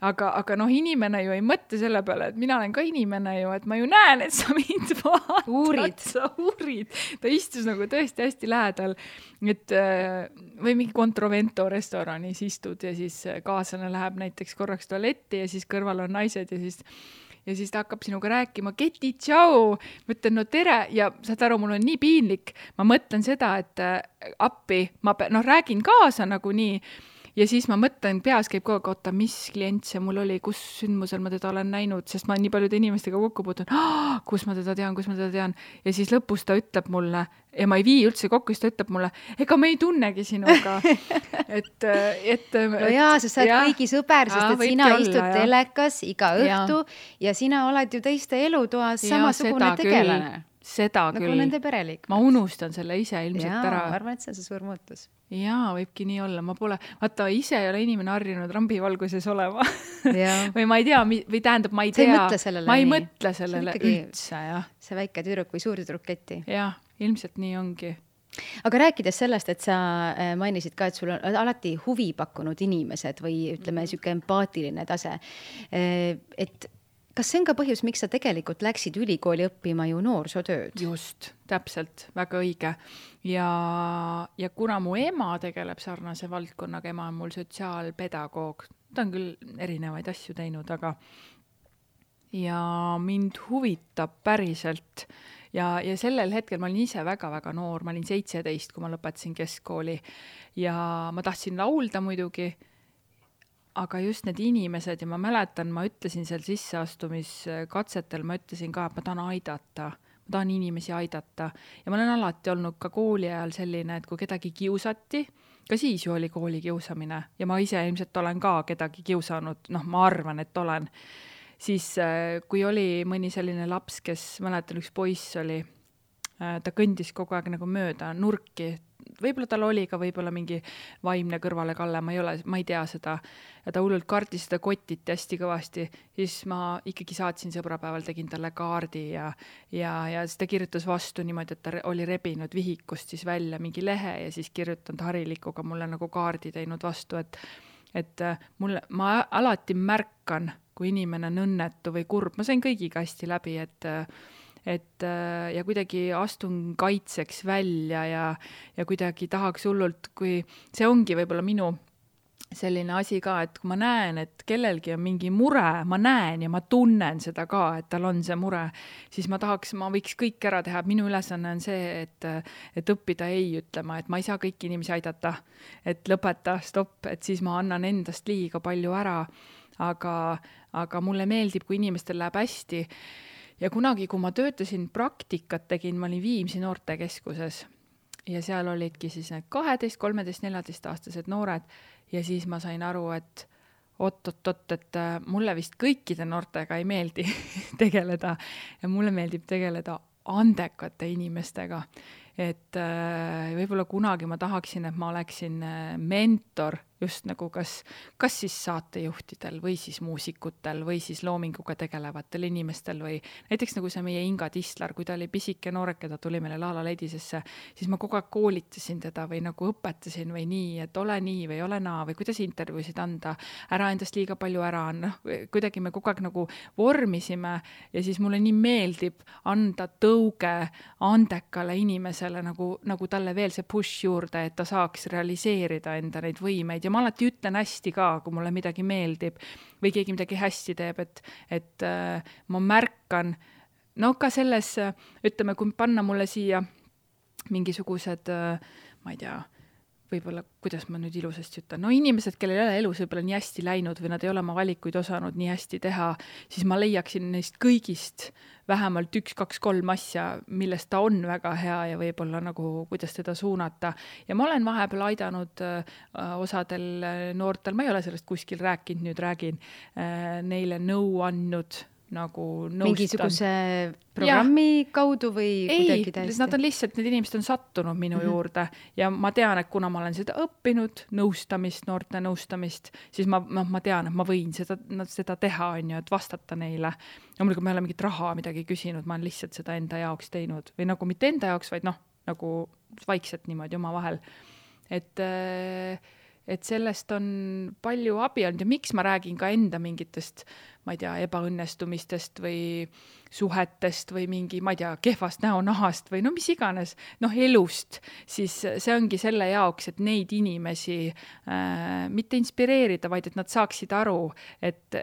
aga inimene ju ei mõtle selle peale, et mina olen ka inimene ju, et ma ju näen, et sa mind vaatad, sa uurid. Ta istus nagu tõesti hästi lähedal, et või mingi Controvento restoranis istud ja siis kaaslane läheb näiteks korraks tualetti ja siis kõrval on naised ja siis ta hakkab sinuga rääkima, Keti, tšau, ma ütlen, no tere, ja saad aru, mul on nii piinlik, ma mõtlen seda, et appi, ma räägin kaasa nagu nii, ja siis ma mõtlen, peas käib kogu aeg, mis klient see mul oli, kus sündmusel ma teda olen näinud, sest ma nii paljude inimestega kokku puutun, kus ma teda tean, ja siis lõpus ta ütleb mulle, ja ma ei vii üldse kokku, siis ta ütleb mulle, ega me ei tunnegi sinuga. No jaa, sa saad kõigi sõber, sest et sina istud telekas iga õhtu ja sina oled ju teiste elutoas samasugune tegelane. seda nagu küll. nende pereliikmed. Ma unustan selle ise ilmselt ära. Ma arvan, et see on see suur muutus. Jaa, võibki nii olla. Ma pole, vaata, ise ei ole inimene harjunud rambivalguses olema. või ma ei tea, või tähendab, ma ei tea. Ma ei mõtle sellele üldse, jah. See väike tüdruk või suur tüdruketti. Jah, ilmselt nii ongi. Aga rääkides sellest, et sa mainisid ka, et sul on alati huvi pakkunud inimesed või ütleme, siuke empaatiline tase, et kas see on ka põhjus, miks sa tegelikult läksid ülikooli õppima ju noorsootööd? Just, täpselt, väga õige. Ja kuna mu ema tegeleb sarnase valdkonnaga, ema on mul sotsiaalpedagoog, ta on küll erinevaid asju teinud, aga ja mind huvitab päriselt ja sellel hetkel ma olin ise väga-väga noor, ma olin 17, kui ma lõpetasin keskkooli ja ma tahtsin laulda muidugi, aga just need inimesed ja ma mäletan, ma ütlesin seal sisseastumiskatsetel, ma ütlesin ka, et ma tahan aidata, ma tahan inimesi aidata ja ma olen alati olnud ka kooli ajal selline, et kui kedagi kiusati, ka siis ju oli kooli kiusamine ja ma ise ilmselt olen ka kedagi kiusanud, ma arvan, et olen, siis kui oli mõni selline laps, kes mäletan, üks poiss oli, ta kõndis kogu aeg nagu mööda nurki, võib-olla tal oli ka võib-olla mingi vaimne kõrvalekalle, ma ei tea seda, ja ta hullult kardis seda kotiti hästi kõvasti, siis ma ikkagi saatsin sõbrapäeval, tegin talle kaardi ja siis ta kirjutas vastu niimoodi, et ta oli rebinud vihikust siis välja mingi lehe ja siis kirjutanud harilikuga mulle nagu kaardi teinud vastu, et ma alati märkan, kui inimene on õnnetu või kurb, ma sain kõigiga hästi läbi, ja kuidagi astun kaitseks välja ja kuidagi tahaks hullult, kui see ongi võib-olla minu selline asi ka, et kui ma näen, et kellelgi on mingi mure, ma näen ja ma tunnen seda ka, et tal on see mure, siis ma võiks kõik ära teha, minu ülesanne on see, et õppida ei ütlema, et ma ei saa kõiki inimesi aidata, et lõpeta, stopp, et siis ma annan endast liiga palju ära, aga mulle meeldib, kui inimestel läheb hästi. Ja kunagi, kui ma töötasin praktikat tegin, ma olin Viimsi noortekeskuses ja seal olidki siis need 12, 13, 14 aastased noored ja siis ma sain aru, et et mulle vist kõikide noortega ei meeldi tegeleda ja mulle meeldib tegeleda andekate inimestega. Et võib-olla kunagi ma tahaksin, et ma oleksin mentor just nagu kas siis saatejuhtidel või siis muusikutel või siis loominguga tegelevatel inimestel või näiteks nagu see meie Inga Tislar, kui ta oli pisike nooreke, ta tuli meile Laala Ledisesse, siis ma kogu aeg koolitasin teda või nagu õpetasin või nii, et ole nii või ole naa või kuidas intervjuusid anda, ära endast liiga palju ära, kuidagi me kogu aeg nagu vormisime ja siis mulle nii meeldib anda tõuge andekale inimesele nagu talle veel see push juurde, et ta saaks realiseerida enda neid võimeid ja ma alati ütlen hästi ka, kui mulle midagi meeldib või keegi midagi hästi teeb, et ma märkan, ka selles, ütleme, kui panna mulle siia mingisugused, ma ei tea, võib-olla, kuidas ma nüüd ilusasti ütlen, inimesed, kellel ei ole elus võib-olla nii hästi läinud või nad ei ole oma valikuid osanud nii hästi teha, siis ma leiaksin neist kõigist vähemalt 1, 2, 3 asja, millest ta on väga hea ja võib-olla nagu, kuidas teda suunata. Ja ma olen vahepeal aidanud osadel noortel, ma ei ole sellest kuskil rääkinud, nüüd räägin, neile nõu andnud, nagu nõustan. Mingisuguse programmi kaudu või kuidagi täiesti? Nad on lihtsalt, need inimesed on sattunud minu juurde ja ma tean, et kuna ma olen seda õppinud, nõustamist, noorte nõustamist, siis ma tean, et ma võin seda teha, et vastata neile. Ja muidugi ma ei ole mingit raha midagi küsinud, ma olen lihtsalt seda enda jaoks teinud või nagu mitte enda jaoks, vaid nagu vaikselt niimoodi oma vahel. Et sellest on palju abi olnud ja miks ma räägin ka enda mingitest, ma ei tea, ebaõnnestumistest või suhetest või mingi, ma ei tea, kehvast näonahast või mis iganes, elust, siis see ongi selle jaoks, et neid inimesi mitte inspireerida, vaid et nad saaksid aru, et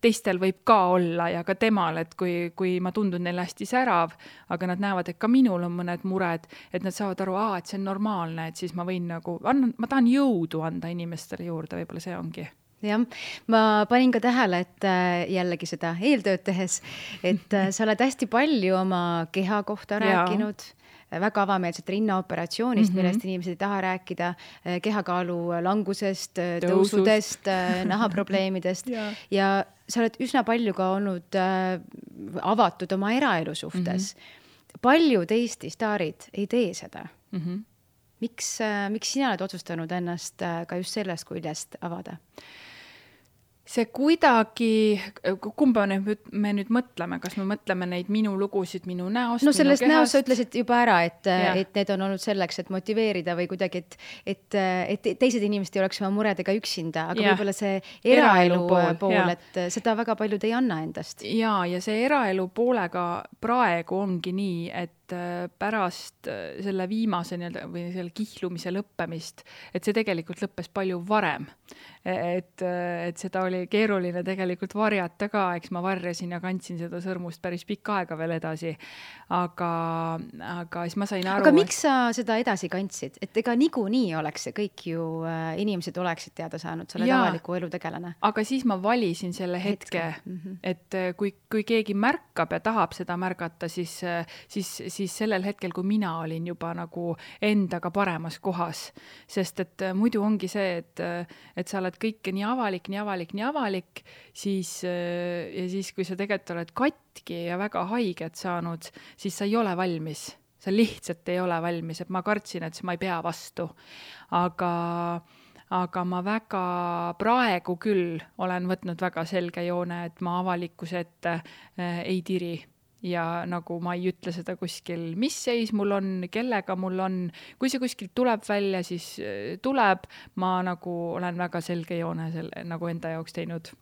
teistel võib ka olla ja ka temal, et kui ma tundun neile hästi särav, aga nad näevad, et ka minul on mõned mured, et nad saavad aru, et see on normaalne, et siis ma võin ma tahan jõudu anda inimestele juurde, võib-olla see ongi. Jah, ma panin ka tähele, et jällegi seda eeltööd tehes, et sa oled hästi palju oma keha kohta rääkinud, väga avameelset rinnaoperatsioonist, millest inimesed ei taha rääkida, kehakaalu langusest, tõusudest, nahaprobleemidest ja sa oled üsna palju ka olnud avatud oma eraelu suhtes. paljud Eesti staarid ei tee seda. Miks sina oled otsustanud ennast ka just sellest küljest avada? See kuidagi, kumba me nüüd mõtleme, kas me mõtleme neid minu lugusid, minu näost, no sellest näost sa ütlesid juba ära, et need on olnud selleks, et motiveerida või kuidagi, et teised inimesed ei oleks oma muredega üksinda, aga võib-olla see eraelu pool, et seda väga paljud ei anna endast. Ja see eraelu poolega praegu ongi nii, et pärast selle viimase või selle kihlumise lõppemist, et see tegelikult lõppes palju varem. Et seda oli keeruline tegelikult varjata ka, eks ma varjasin ja kandsin seda sõrmust päris pikka aega veel edasi. Aga siis ma sain aru... Aga miks sa seda edasi kandsid? Et ega niikuinii oleks see kõik ju inimesed oleksid teada saanud, sa oled avaliku elu tegelane. Aga siis ma valisin selle hetke. Et kui keegi märkab ja tahab seda märgata, siis sellel hetkel, kui mina olin juba nagu endaga paremas kohas. Sest et muidu ongi see, et sa oled kõike nii avalik, siis kui sa tegelikult oled katki ja väga haiget saanud, siis sa ei ole valmis. Sa lihtsalt ei ole valmis, et ma kartsin, et ma ei pea vastu. Aga ma väga praegu küll olen võtnud väga selge joone, et ma avalikkuse ette ei tiri. Ja nagu ma ei ütle seda kuskil, mis seis mul on, kellega mul on, kui see kuskil tuleb välja, siis tuleb, ma nagu olen väga selge joone nagu enda jaoks teinud.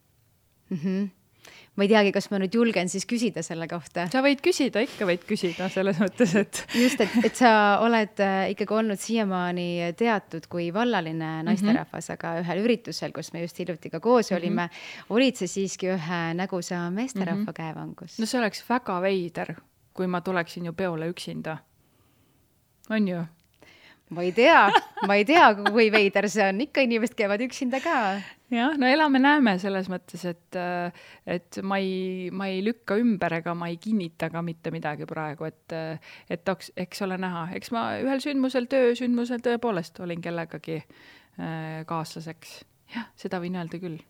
Ma ei teagi, kas ma nüüd julgen siis küsida selle kohta. Sa võid küsida, ikka võid küsida selles mõttes, et... Just, et sa oled ikkagi olnud siiamaani teatud kui vallaline naisterahvas, aga ühel üritusel, kus me just hiljuti ka koos olime, olid see siiski ühe nägusa meesterahva käevangus. No see oleks väga veider, kui ma tuleksin ju peole üksinda. On ju? Ma ei tea, kui veider see on. Ikka inimesed käivad üksinda ka. Jah, no elame-näeme selles mõttes, et ma ei lükka ümber ega ma ei kinnita ka mitte midagi praegu, et eks ole näha. Eks ma ühel sündmusel tõepoolest olin kellegagi kaaslaseks. Jah, seda võin öelda küll.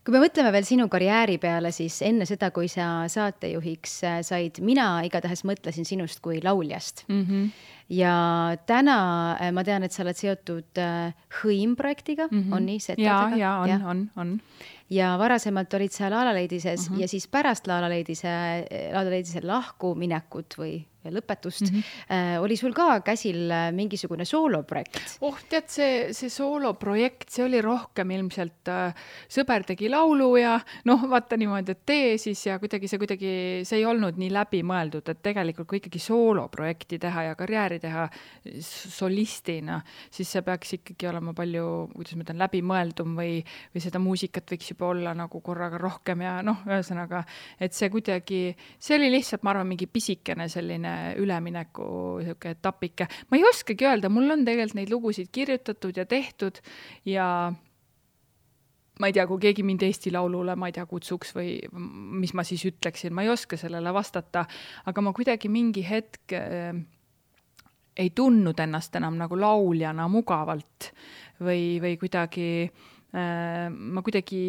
Kui me mõtleme veel sinu karjääri peale, siis enne seda, kui sa saatejuhiks said, mina igatahes mõtlesin sinust kui lauljast. Ja täna ma tean, et sa oled seotud Hõim-projektiga, on nii? Ja, on. Ja varasemalt olid sa Laalaleedises ja siis pärast Laalaleedise lahkuminekut või lõpetust oli sul ka käsil mingisugune sooloprojekt? Tead, see sooloprojekt, see oli rohkem ilmselt sõber tegi laulu ja vaata niimoodi, et tee siis ja see ei olnud nii läbi mõeldud, et tegelikult kui ikkagi sooloprojekti teha ja karjääri teha solistina, siis see peaks ikkagi olema palju, kuidas ma ütlen, läbi mõeldum või seda muusikat võiks juba olla nagu korraga rohkem ja ühesõnaga, et see kuidagi, see oli lihtsalt, ma arvan, mingi pisikene selline ülemineku etapike. Ma ei oskagi öelda, mul on tegelikult neid lugusid kirjutatud ja tehtud ja ma ei tea, kui keegi mind Eesti Laulule, ma ei tea, kutsuks või mis ma siis ütleksin, ma ei oska sellele vastata, aga ma kuidagi mingi hetk ei tundnud ennast enam nagu lauljana mugavalt või kuidagi ma kuidagi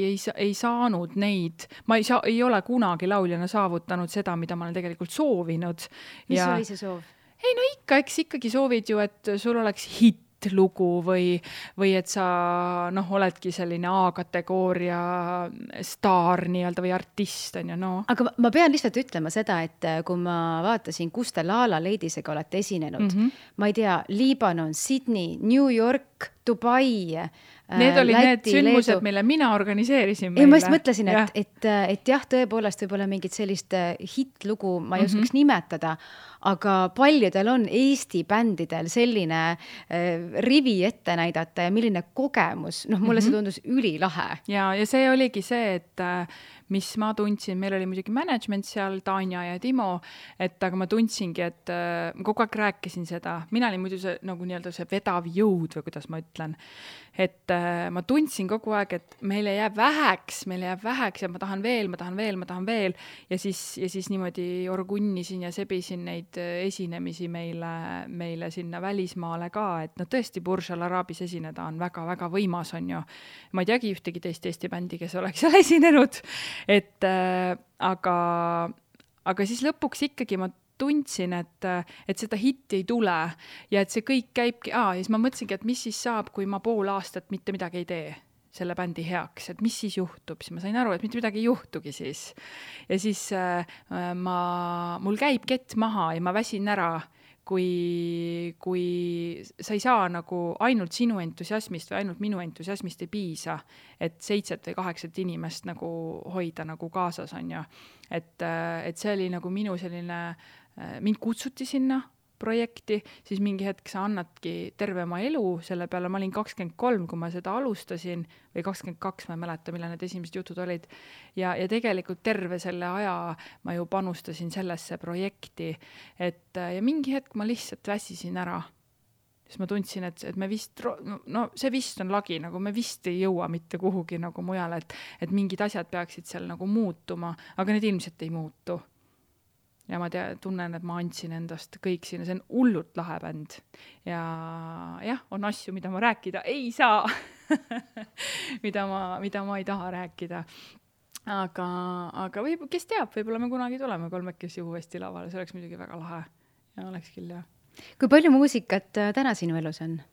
ei saanud neid, ma ei ole kunagi lauljana saavutanud seda, mida ma olen tegelikult soovinud. Mis oli see soov? Ei, ikka, eks ikkagi soovid ju, et sul oleks lugu või et sa oledki selline A-kategooria staar nii-öelda või artist on ju, Aga ma pean lihtsalt ütlema seda, et kui ma vaatasin, kus te Laalaleedisega olete esinenud, ma ei tea, Liibanon, Sydney, New York, Dubai, need olid need sündmused, mille mina organiseerisin meile. Ma just mõtlesin, et jah, tõepoolest võib-olla mingit sellist hitlugu ma ei oskaks nimetada, aga paljudel on Eesti bändidel selline rivi ette näidata ja milline kogemus, mulle see tundus ülilahe. Ja see oligi see, et mis ma tundsin, meil oli muidugi management seal, Tanja ja Timo, aga ma tundsingi, et ma kogu aeg rääkisin seda, mina olin muidu see, nagu nii-öelda see vedav jõud või kuidas ma ütlen, et ma tundsin kogu aeg, et meile jääb väheks ja ma tahan veel ja siis niimoodi orgunnisin ja sebisin neid esinemisi meile sinna välismaale ka, et tõesti Burj Al Arabis esineda on väga-väga võimas on ju. Ma ei teagi ühtegi teist Eesti bändi, kes oleks seal esinenud, aga aga siis lõpuks ikkagi ma tundsin, et seda hitti ei tule ja et see kõik käibki, ja siis ma mõtlesingi, et mis siis saab, kui ma pool aastat mitte midagi ei tee selle bändi heaks, et mis siis juhtub, siis ma sain aru, et mitte midagi ei juhtugi siis. Ja siis mul käib kett maha ja ma väsin ära, kui sa ei saa nagu ainult sinu entusiasmist või ainult minu entusiasmist ei piisa, et 7 või 8 inimest nagu hoida nagu kaasas on ju. Et see oli nagu minu selline, mind kutsuti sinna projekti, siis mingi hetk sa annadki terve oma elu selle peale, ma olin 23, kui ma seda alustasin, või 22, ma ei mäleta, millal need esimesed jutud olid, ja tegelikult terve selle aja ma ju panustasin sellesse projekti, ja mingi hetk ma lihtsalt väsisin ära. Siis ma tundsin, et me vist, no see vist on lagi, nagu me vist ei jõua mitte kuhugi nagu mujal, et mingid asjad peaksid seal nagu muutuma, aga need ilmselt ei muutu. Ja ma tunnen, et ma andsin endast kõik sinna, see on hullult lahe bänd. Ja jah, on asju, mida ma rääkida ei saa, mida ma ei taha rääkida. Aga kes teab, võib-olla me kunagi tuleme 3 uuesti lavale, see oleks muidugi väga lahe. Ja oleks küll, jah. Kui palju muusikat täna sinu elus on?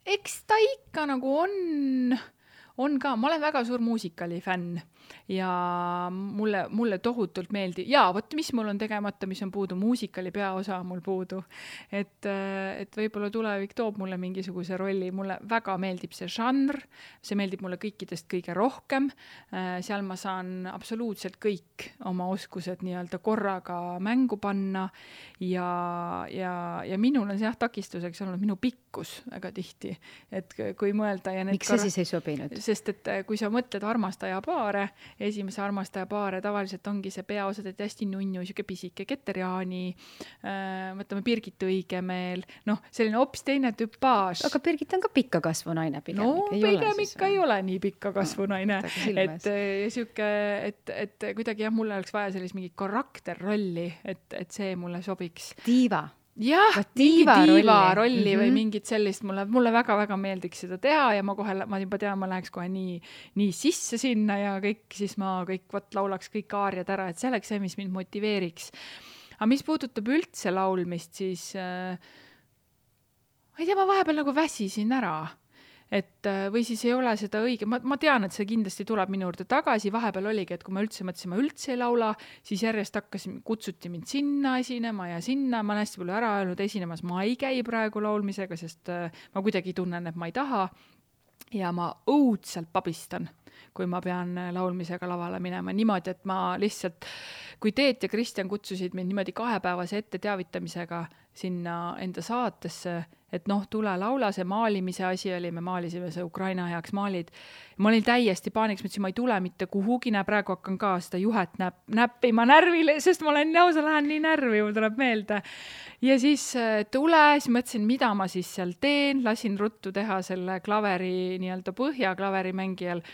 Eks ta ikka nagu on ka, ma olen väga suur muusikali fänn ja mulle tohutult meeldib. Ja võt, mis mul on tegemata, mis on puudu, muusikali peaosa mul puudu. Et võib-olla tulevik toob mulle mingisuguse rolli. Mulle väga meeldib see žanr, see meeldib mulle kõikidest kõige rohkem. Seal ma saan absoluutselt kõik oma oskused nii-öelda korraga mängu panna ja minul on see takistuseks olnud minu pikkus väga tihti. Et kui mõelda ja miks see siis ei sobinud? Sest et kui sa mõtled armastaja paare, esimese armastaja paare, tavaliselt ongi see peaosad, et hästi nunnu, siuke pisike Keter-Jaani, mõtleme Birgit Õigemeel, selline hoopis teine tüpaaž. Aga Birgit on ka pikka kasvunaine pigem. No pigem ikka ei ole nii pikka kasvunaine. Et kuidagi jah, mulle oleks vaja sellist mingi karakterrolli, et see mulle sobiks. Diiva. Jah, diiva rolli või mingit sellist, mulle väga-väga meeldiks seda teha ja ma juba tean, ma läheks kohe nii sisse sinna ja kõik, siis ma laulaks kõik aariad ära, et see oleks see, mis mind motiveeriks. Aga mis puudutab üldse laulmist, siis ma ei tea, ma vahepeal nagu väsisin ära. Või siis ei ole seda õige, ma tean, et see kindlasti tuleb minu juurde tagasi, vahepeal oligi, et kui ma mõtlesin, ma üldse ei laula, siis järjest kutsuti mind sinna esinema ja sinna, ma olen hästi palju ära öelnud esinemas, ma ei käi praegu laulmisega, sest ma kuidagi tunnen, et ma ei taha ja ma õudselt pabistan, kui ma pean laulmisega lavale minema niimoodi, et ma lihtsalt, kui Teet ja Kristjan kutsusid mind niimoodi 2-päevase ette teavitamisega sinna enda saatesse, et tule laula, see maalimise asi oli, me maalisime see Ukraina heaks maalid. Ma olin täiesti paaniks, mõtlesin, ma ei tule mitte kuhugi, praegu hakkan ka seda juhet näppima närvile, sest ma olen lausa lähen nii närvi, mul tuleb meelde. Ja siis siis mõtlesin, mida ma siis seal teen, lasin ruttu teha selle klaveri nii-öelda põhja klaverimängijal.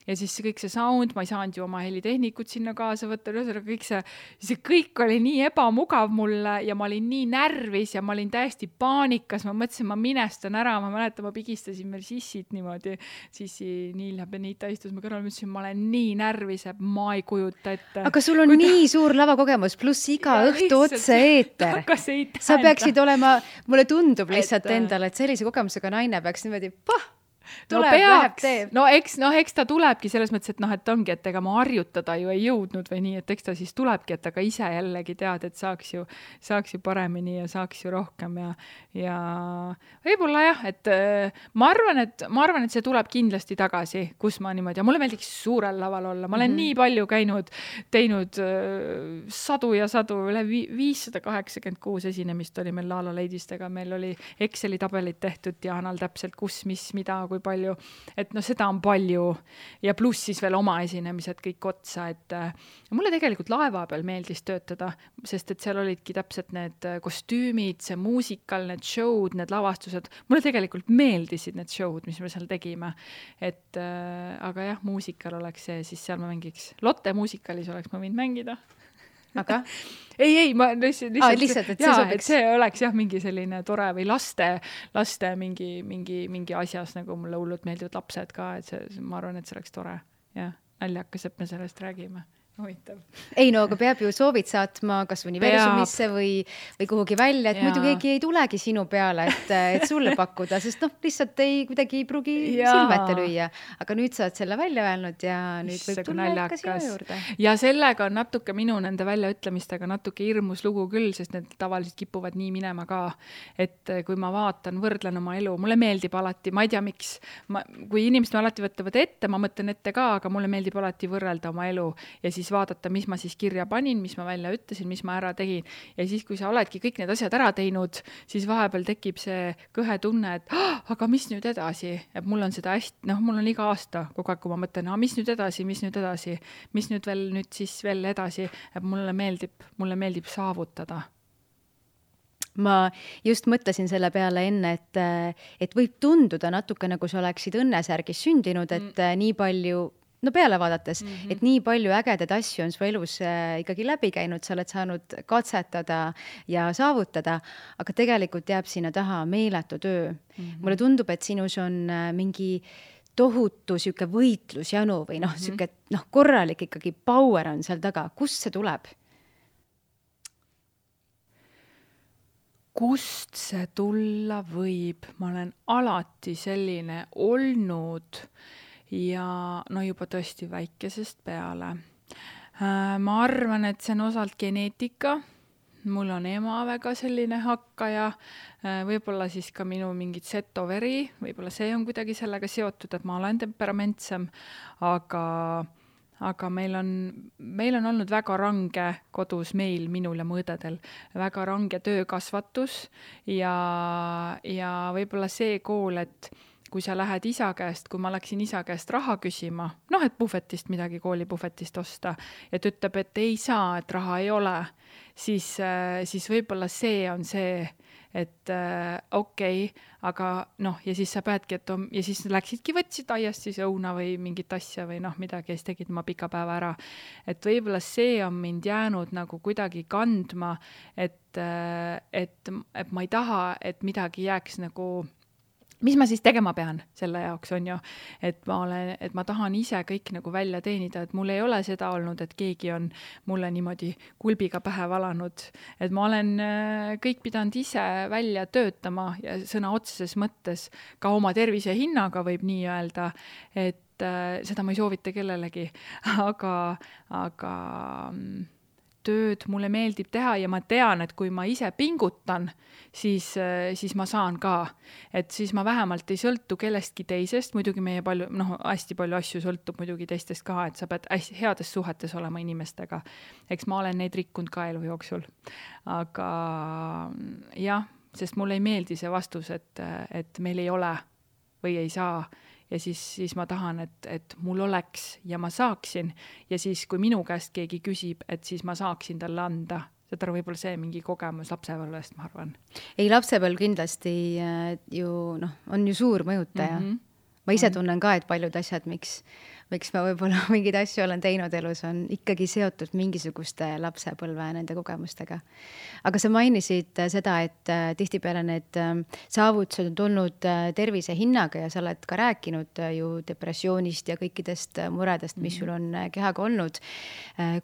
Ja siis kõik see sound, ma ei saanud ju oma helitehnikut sinna kaasa võtta, kõik oli nii ebamugav mulle ja ma olin nii närvis ja ma olin täiesti paanikas, ma mõtlesin, ma minestan ära, ma mäletan, ma pigistasin meil Sissit niimoodi, Sissi Niilja Benita istus ma kõrval, mõtlesin, ma olen nii närvis, et ma ei kujuta ette. Aga sul on nii suur lavakogemus, pluss iga õhtu otse eeter. Sa peaksid olema, mulle tundub lihtsalt endale, et sellise kogemusega naine peaks niimoodi, eks ta tulebki selles mõttes, et ongi, et ega ma harjutada ju ei jõudnud või nii, et eks ta siis tulebki, et aga ise jällegi tead, et saaks ju paremini ja saaks ju rohkem ja võib-olla jah, et ma arvan, et see tuleb kindlasti tagasi, kus ma niimoodi, ja mulle meeldiks suurel laval olla, ma olen nii palju teinud sadu ja sadu, üle 586 esinemist oli meil Laala Leidistega, meil oli Exceli tabelid tehtud ja Anal täpselt kus, mis, mida, kui palju, et seda on palju ja pluss siis veel oma esinemised kõik otsa, et mulle tegelikult laeva peal meeldis töötada, sest et seal olidki täpselt need kostüümid, see muusikal, need show'd, need lavastused, mulle tegelikult meeldisid need show'd, mis me seal tegime, et aga jah, muusikal oleks see, siis seal ma mängiks, Lotte muusikalis oleks ma võinud mängida. Aga? ei, ma lihtsalt, et see sobiks. Et see oleks jah mingi selline tore või laste mingi asjas, nagu mulle hullult meeldivad lapsed ka, et see, ma arvan, et see oleks tore. Jah, naljakas, et me sellest räägime. huvitav. Ei no, aga peab ju soovid saatma kas universumisse või kuhugi välja, et muidu keegi ei tulegi sinu peale, et sulle pakkuda, sest lihtsalt kuidagi ei pruugi silme ette lüüa. Aga nüüd sa oled selle välja öelnud ja nüüd võib tulla ikka sinu juurde. Ja sellega on natuke minu nende väljaütlemistega natuke hirmus lugu küll, sest need tavaliselt kipuvad nii minema ka, et kui ma vaatan, võrdlen oma elu, mulle meeldib alati, ma ei tea miks, kui inimesed alati võtavad ette, ma mõtlen ette ka, aga mulle meeldib alati võrrelda oma elu ja siis vaadata, mis ma siis kirja panin, mis ma välja ütlesin, mis ma ära tegin. Ja siis, kui sa oledki kõik need asjad ära teinud, siis vahepeal tekib see kõhe tunne, et aga mis nüüd edasi? Et mul on seda hästi, mul on iga aasta kogu aeg, kui ma mõtlen, mis nüüd edasi, mis nüüd veel edasi, et mulle meeldib saavutada. Ma just mõtlesin selle peale enne, et võib tunduda natuke nagu sa oleksid õnnesärgis sündinud, et nii palju peale vaadates, et nii palju ägedaid asju on su elus ikkagi läbi käinud, sa oled saanud katsetada ja saavutada, aga tegelikult jääb sinna taha meeletu töö. Mulle tundub, et sinus on mingi tohutu siuke võitlusjanu või siuke korralik ikkagi power on seal taga. Kust see tuleb? Kust see tulla võib? Ma olen alati selline olnud ja juba tõesti väikesest peale. Ma arvan, et see on osalt geneetika. Mul on ema väga selline hakkaja, võib-olla siis ka minu mingid setoveri, võib-olla see on kuidagi sellega seotud, et ma olen temperamentsem, aga meil on olnud väga range kodus minul ja mu õdedel, väga range töökasvatus ja võib-olla see kool, et kui sa lähed isa käest, kui ma läksin isa käest raha küsima, et puhvetist midagi, koolipuhvetist osta, ja ta ütleb, et ei saa, et raha ei ole, siis võib-olla see on see, et okei, aga ja siis sa peadki, ja siis läksidki, võtsid aiast siis õuna või mingit asja või midagi, ja siis tegid oma pika päeva ära. Et võib-olla see on mind jäänud nagu kuidagi kandma, et ma ei taha, et midagi jääks nagu mis ma siis tegema pean selle jaoks on ju, et ma tahan ise kõik nagu välja teenida, et mul ei ole seda olnud, et keegi on mulle niimoodi kulbiga pähe valanud, et ma olen kõik pidanud ise välja töötama ja sõna otseses mõttes ka oma tervise hinnaga võib nii öelda, et seda ma ei soovita kellelegi, aga tööd mulle meeldib teha ja ma tean, et kui ma ise pingutan, siis ma saan ka. Et siis ma vähemalt ei sõltu kellestki teisest, muidugi meie hästi palju asju sõltub muidugi teistest ka, et sa pead hästi heades suhetes olema inimestega. Eks ma olen neid rikkunud ka elu jooksul. Aga jah, sest mulle ei meeldi see vastus, et meil ei ole või ei saa. Ja siis ma tahan, et mul oleks ja ma saaksin ja siis, kui minu käest keegi küsib, et siis ma saaksin talle anda. Seda võib-olla see mingi kogemus lapsepõlvest, ma arvan. Ei, lapsepõlv kindlasti on ju suur mõjutaja. Ma ise tunnen ka, et paljud asjad, miks ma võib-olla mingeid asju olen teinud elus, on ikkagi seotud mingisuguste lapsepõlve nende kogemustega. Aga sa mainisid seda, et tihtipeale need saavutused on tulnud tervise hinnaga ja sa oled ka rääkinud ju depressioonist ja kõikidest muredest, mis sul on kehaga olnud.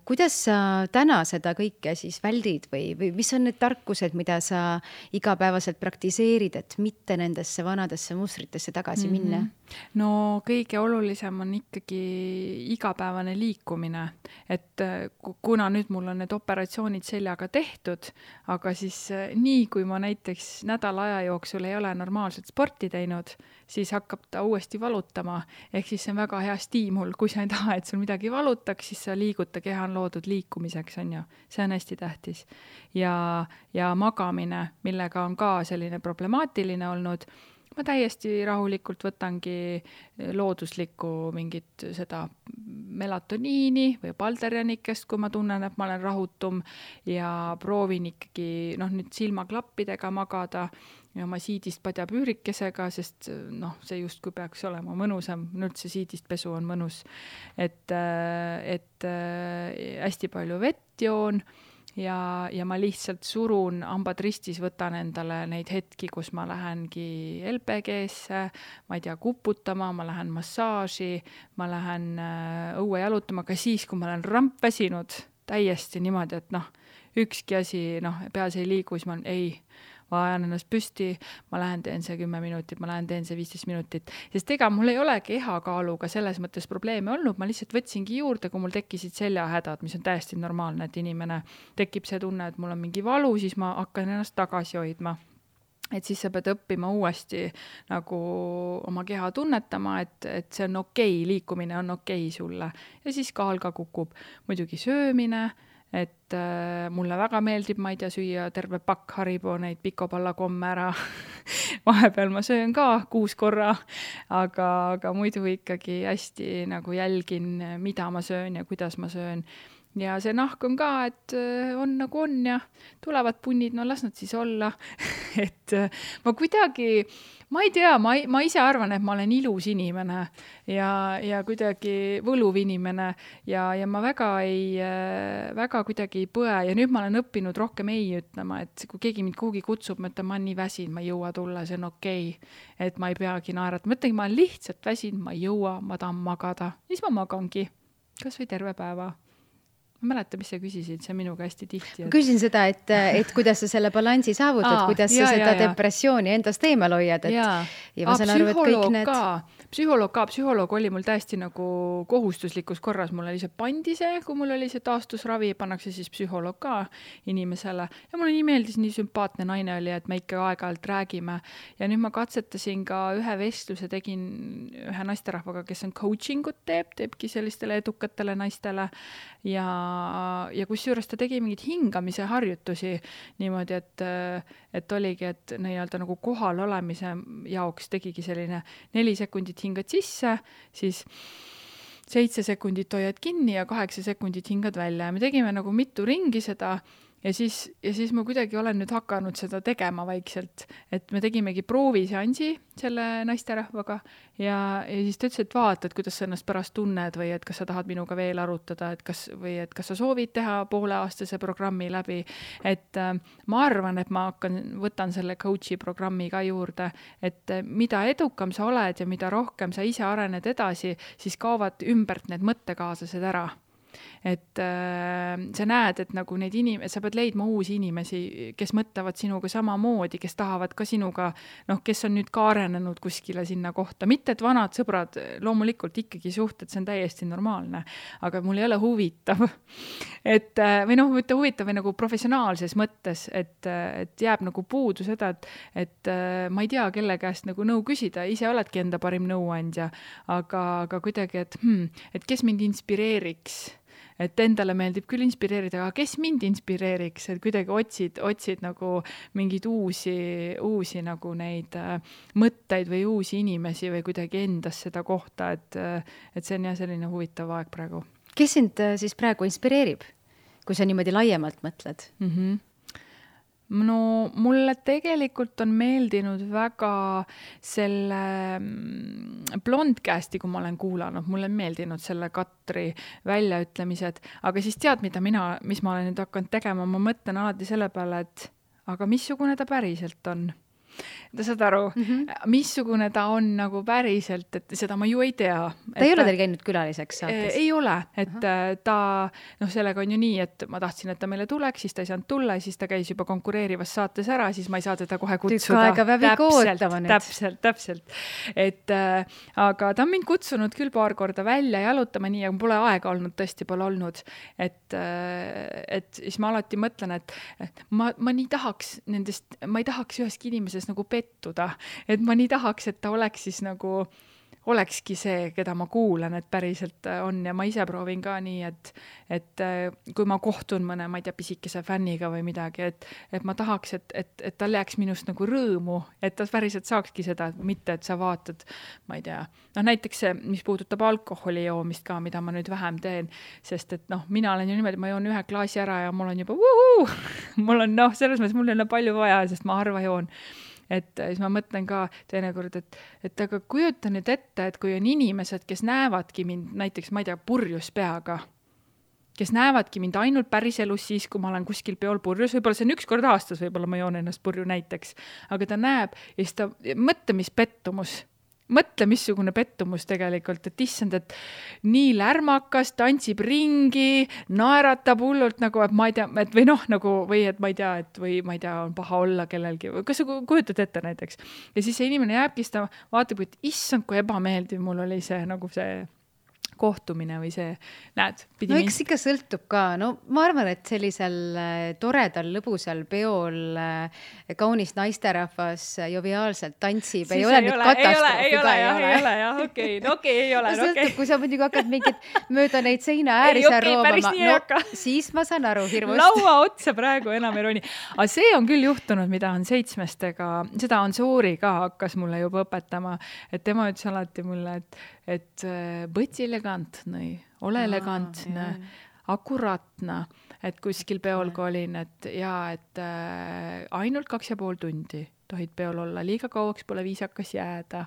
Kuidas sa täna seda kõike siis väldid või mis on need tarkused, mida sa igapäevaselt praktiseerid, et mitte nendesse vanadesse mustritesse tagasi minna? No kõige olulisem on ikkagi igapäevane liikumine, et kuna nüüd mul on need operatsioonid seljaga tehtud, aga siis nii, kui ma näiteks nädala aja jooksul ei ole normaalselt sporti teinud, siis hakkab ta uuesti valutama, ehk siis see on väga hea stiimul, kui sa ei taha, et sul midagi valutaks, siis sa liiguta, keha on loodud liikumiseks, on ju, see on hästi tähtis. Ja magamine, millega on ka selline problemaatiline olnud, ma täiesti rahulikult võtangi looduslikku mingit seda melatoniini või palderjanikest, kui ma tunnen, et ma olen rahutum ja proovin ikkagi nüüd silmaklappidega magada ja oma siidist padjapüürikesega, sest see justkui peaks olema mõnusam, üldse siidist pesu on mõnus, et hästi palju vett joon ja ma lihtsalt surun hambad ristis, võtan endale neid hetki, kus ma lähengi LPG-sse, ma ei tea, kuputama, ma lähen massaaži, ma lähen õue jalutama, ka siis, kui ma olen rampväsinud täiesti niimoodi, et ükski asi, peas ei liigu, siis ma ma ajan ennast püsti, ma lähen teen see 10 minutit, ma lähen teen see 15 minutit, sest ega mul ei ole kehakaaluga selles mõttes probleeme olnud, ma lihtsalt võtsingi juurde, kui mul tekkisid seljahädad, mis on täiesti normaalne, et inimene tekib see tunne, et mul on mingi valu, siis ma hakkan ennast tagasi hoidma. Et siis sa pead õppima uuesti nagu oma keha tunnetama, et see on okei, liikumine on okei sulle. Ja siis kaal ka kukub. Muidugi söömine, et mulle väga meeldib, ma ei tea, süüa terve pakk Haribo neid pikopallakomme ära. Vahepeal ma söön ka 6 korra, aga muidu ikkagi hästi nagu jälgin, mida ma söön ja kuidas ma söön. Ja see nahk on ka, et on nagu on ja tulevad punnid, las nad siis olla. Et ma kuidagi, ma ei tea, ma ise arvan, et ma olen ilus inimene ja kuidagi võluv inimene ja ma väga kuidagi ei põe ja nüüd ma olen õppinud rohkem ei ütlema, et kui keegi mind kuhugi kutsub, ma ütlen, ma olen nii väsin, ma ei jõua tulla, see on okei, et ma ei peagi naerata. Ma ütlen, ma olen lihtsalt väsin, ma ei jõua, ma tahan magada. Siis ma magangi, kas või terve päeva. Ma mäleta, mis sa küsisid, see minuga hästi tihti. Ma küsin seda, et kuidas sa selle balansi saavutad, kuidas sa seda depressiooni endast eemal hoiad. Ja ma saan aru, et kõik need... Psühholoog oli mul täiesti nagu kohustuslikus korras. Mul oli see pandi see, kui mul oli see taastusravi, pannakse siis psühholoog ka inimesele. Ja mulle nii meeldis, nii sümpaatne naine oli, et me ikka aeg-ajalt räägime. Ja nüüd ma katsetasin ka ühe vestluse, tegin ühe naisterahvaga, kes on coachingut teebki sellistele edukatele naistele. Ja kusjuures ta tegi mingid hingamise harjutusi niimoodi, et oligi, et nii-öelda nagu kohal olemise jaoks tegigi selline 4 sekundit hingad sisse, siis 7 sekundit hoiad kinni ja 8 sekundit hingad välja. Ja me tegime nagu mitu ringi seda ja siis ma kuidagi olen nüüd hakanud seda tegema vaikselt, et me tegimegi prooviseansi selle naisterahvaga ja siis ta ütles, et vaatad, kuidas sa ennast pärast tunned või et kas sa tahad minuga veel arutada, et kas sa soovid teha pooleaastase programmi läbi, et ma arvan, et ma võtan selle coachi programmi ka juurde, et mida edukam sa oled ja mida rohkem sa ise arened edasi, siis kaovad ümbert need mõttekaaslased ära. Et sa näed, et nagu neid sa pead leidma uusi inimesi, kes mõtlevad sinuga samamoodi, kes tahavad ka sinuga, kes on nüüd ka arenenud kuskile sinna kohta. Mitte, et vanad sõbrad, loomulikult ikkagi suhted, see on täiesti normaalne, aga mul ei ole huvitav. Või mitte huvitav või nagu professionaalses mõttes, et jääb nagu puudu seda, et ma ei tea, kelle käest nagu nõu küsida, ise oledki enda parim nõuandja, aga kuidagi, et kes mind inspireeriks. Et endale meeldib küll inspireerida, aga kes mind inspireeriks, et kuidagi otsid nagu mingeid uusi nagu neid mõtteid või uusi inimesi või kuidagi endas seda kohta, et see on jah selline huvitav aeg praegu. Kes sind siis praegu inspireerib, kui sa niimoodi laiemalt mõtled? No mulle tegelikult on meeldinud väga selle Blondcasti, kui ma olen kuulanud, mulle on meeldinud selle Katri väljaütlemised, aga siis tead, mis ma olen nüüd hakanud tegema, ma mõtlen alati selle peale, et aga missugune ta päriselt on? Ta saad aru, missugune ta on nagu päriselt, et seda ma ju ei tea. Ta ei ole teil käinud külaliseks saates? Ei ole, et ta, sellega on ju nii, et ma tahtsin, et ta meile tuleks, siis ta ei saanud tulla, siis ta käis juba konkureerivas saates ära, siis ma ei saa teda kohe kutsuda. Tükk aega peab ootama nüüd. Täpselt. Aga ta on mind kutsunud küll paar korda välja jalutama nii, aga pole aega olnud, tõesti pole olnud. Et siis ma alati mõtlen, et ma nii tahaks nendest, ma ei tahaks üheski inimeses nagu pettuda, et ma nii tahaks, et ta oleks siis nagu, olekski see, keda ma kuulan, et päriselt on ja ma ise proovin ka nii, et kui ma kohtun mõne, ma ei tea, pisikese fänniga või midagi, et ma tahaks, et tal jääks minust nagu rõõmu, et ta päriselt saakski seda, mitte et sa vaatad, ma ei tea, näiteks see, mis puudutab alkoholi joomist ka, mida ma nüüd vähem teen, sest et mina olen ju niimoodi, ma joon 1 klaasi ära ja mul on juba mul on selles mõttes, mul ei ole palju vaja, sest ma harva joon. Et siis ma mõtlen ka teinekord, et aga kujuta nüüd ette, et kui on inimesed, kes näevadki mind näiteks, ma ei tea, purjus peaga, kes näevadki mind ainult päriselus siis, kui ma olen kuskil peol purjus, võib-olla see on 1 kord aastas, võib-olla ma joon ennast purju näiteks, aga ta näeb ja siis ta, mõtle, mis pettumus. Mõtle, missugune pettumus tegelikult, et issand, et nii lärmakas, tantsib ringi, naeratab hullult nagu, et ma ei tea, et või noh, nagu, või et ma ei tea, et või ma ei tea, on paha olla kellelgi, kas sa kujutad ette näiteks? Ja siis see inimene jääbki, siis ta vaatab, et issand, kui ebameeldiv mul oli see, nagu see kohtumine või see, näed. No eks ikka sõltub ka, no ma arvan, et sellisel toredal, lõbusal peol kaunis naisterahvas joviaalselt tantsib, ei ole nüüd katastroofi ka ei ole, jah, okei, ei ole. Sõltub, kui sa muidugi hakkad mingit mööda neid seina ääri seal roomama, no siis ma saan aru hirmust. Laua otsa praegu enam ei roni. Aga see on küll juhtunud, mida on 7-stega, seda on Soori ka hakkas mulle juba õpetama, et tema ütles alati mulle, et võtsi elegantne, ole elegantne, akuraatne, et kuskil peol kui olin, et ainult 2,5 tundi tohid peol olla, liiga kauaks pole viisakas jääda.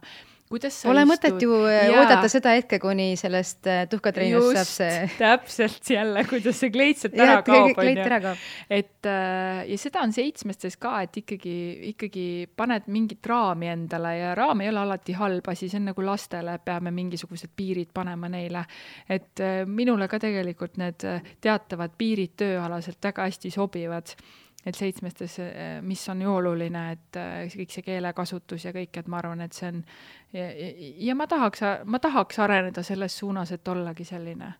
Pole mõtet ju oodata seda hetke, kuni sellest tuhkatreenust saab see. Täpselt jälle, kuidas see kleitselt ära kaob. Ja seda on 7-stes ka, et ikkagi paned mingit raami endale ja raam ei ole alati halb asi, see on nagu lastele, peame mingisugused piirid panema neile. Et minule ka tegelikult need teatavad piirid tööalaselt väga hästi sobivad. Et 7-stes, mis on ju oluline, et kõik see keelekasutus ja kõik, et ma arvan, et see on ja ma tahaks areneda selles suunas, et ollagi selline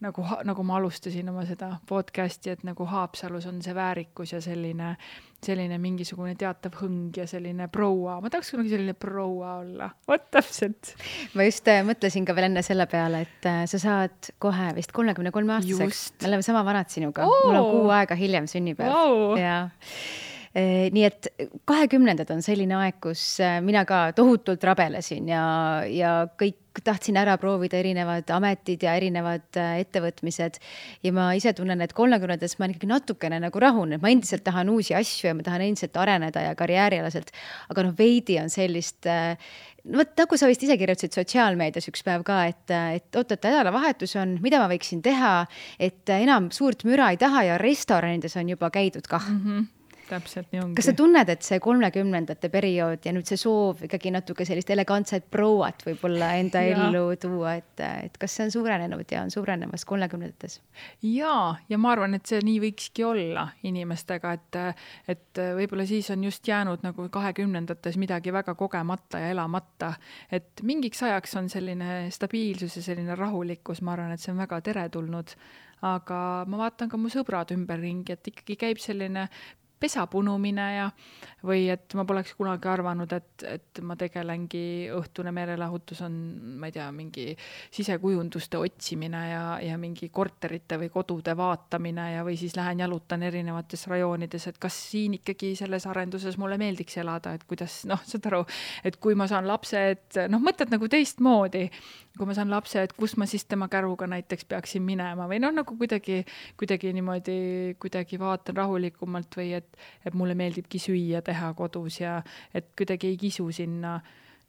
nagu ma alustasin oma seda podcasti, et nagu Haapsalus on see väärikus ja selline mingisugune teatav hõng ja selline proua. Ma tahaks kunagi selline proua olla. Vot täpselt. Ma just mõtlesin ka veel enne selle peale, et sa saad kohe vist 33-aastaseks. Me oleme sama vanad sinuga. Mul on 6 aega hiljem sünnipäev. Wow. Ja. Nii et 20 on selline aeg, kus mina ka tohutult rabelesin ja kõik tahtsin ära proovida erinevad ametid ja erinevad ettevõtmised ja ma ise tunnen, et 30-des ma ikkagi natukene nagu rahun, et ma endiselt tahan uusi asju ja ma tahan endiselt areneda ja karjäärialaselt, aga veidi on sellist nagu sa vist ise kirjutasid sotsiaalmeedias üks päev ka, et oot, nädalavahetus on, mida ma võiksin teha, et enam suurt müra ei taha ja restoranides on juba käidud kah. Täpselt nii ongi. Kas sa tunned, et see 30-ndate periood ja nüüd see soov ikkagi natuke sellist elegantset prouat võib-olla enda ellu tuua, et kas see on suurenenud ja on suurenemas 30-ndates? Ja ma arvan, et see nii võikski olla inimestega, et võib-olla siis on just jäänud nagu 20-ndates midagi väga kogemata ja elamata, et mingiks ajaks on selline stabiilsus ja selline rahulikkus, ma arvan, et see on väga teretulnud, aga ma vaatan ka mu sõbrad ümberringi, et ikkagi käib selline pesapunumine või et ma poleks kunagi arvanud, et ma tegelengi õhtune meelelahutus on, ma ei tea, mingi sisekujunduste otsimine ja mingi korterite või kodude vaatamine või siis lähen jalutan erinevates rajoonides, et kas siin ikkagi selles arenduses mulle meeldiks elada, et kuidas, saad aru, et kui ma saan lapse, et mõtled nagu teistmoodi, kui ma saan lapse, et kus ma siis tema käruga näiteks peaksin minema või nagu kuidagi niimoodi kuidagi vaatan rahulikumalt või et mulle meeldibki süüa teha kodus ja et kuidagi ei kisu sinna.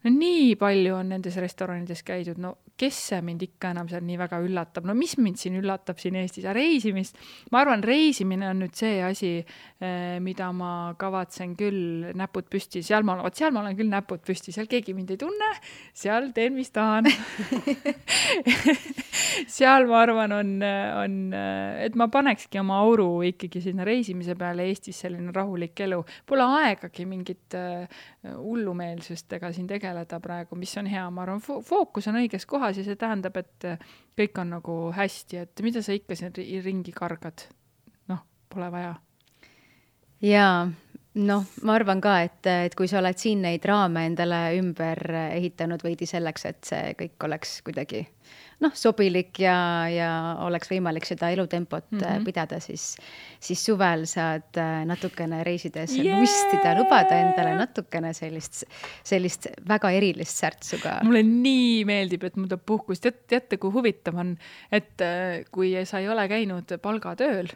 Nii palju on nendes restoranides käidud, kes see mind ikka enam seal nii väga üllatab, mis mind siin üllatab siin Eestis, reisimist. Ma arvan, reisimine on nüüd see asi, mida ma kavatsen küll näpud püsti, seal ma olen küll näpud püsti, seal keegi mind ei tunne, seal teen, mis tahan. Seal ma arvan on, et ma panekski oma auru ikkagi sinna reisimise peale Eestis selline rahulik elu. Pole aegagi mingit hullumeelsustega siin tegeleda praegu, mis on hea, ma arvan, fookus on õiges kohas ja see tähendab, et kõik on nagu hästi, et mida sa ikka siin ringi kargad? Pole vaja. Jaa, ma arvan ka, et kui sa oled siin neid raame endale ümber ehitanud veidi selleks, et see kõik oleks kuidagi sobilik ja oleks võimalik seda elutempot pidada, siis suvel saad natukene reisides lustida, lubada endale natukene sellist väga erilist särtsuga. Mulle nii meeldib, et mul tuleb puhkust. Teate, kui huvitav on, et kui sa ei ole käinud palgatööl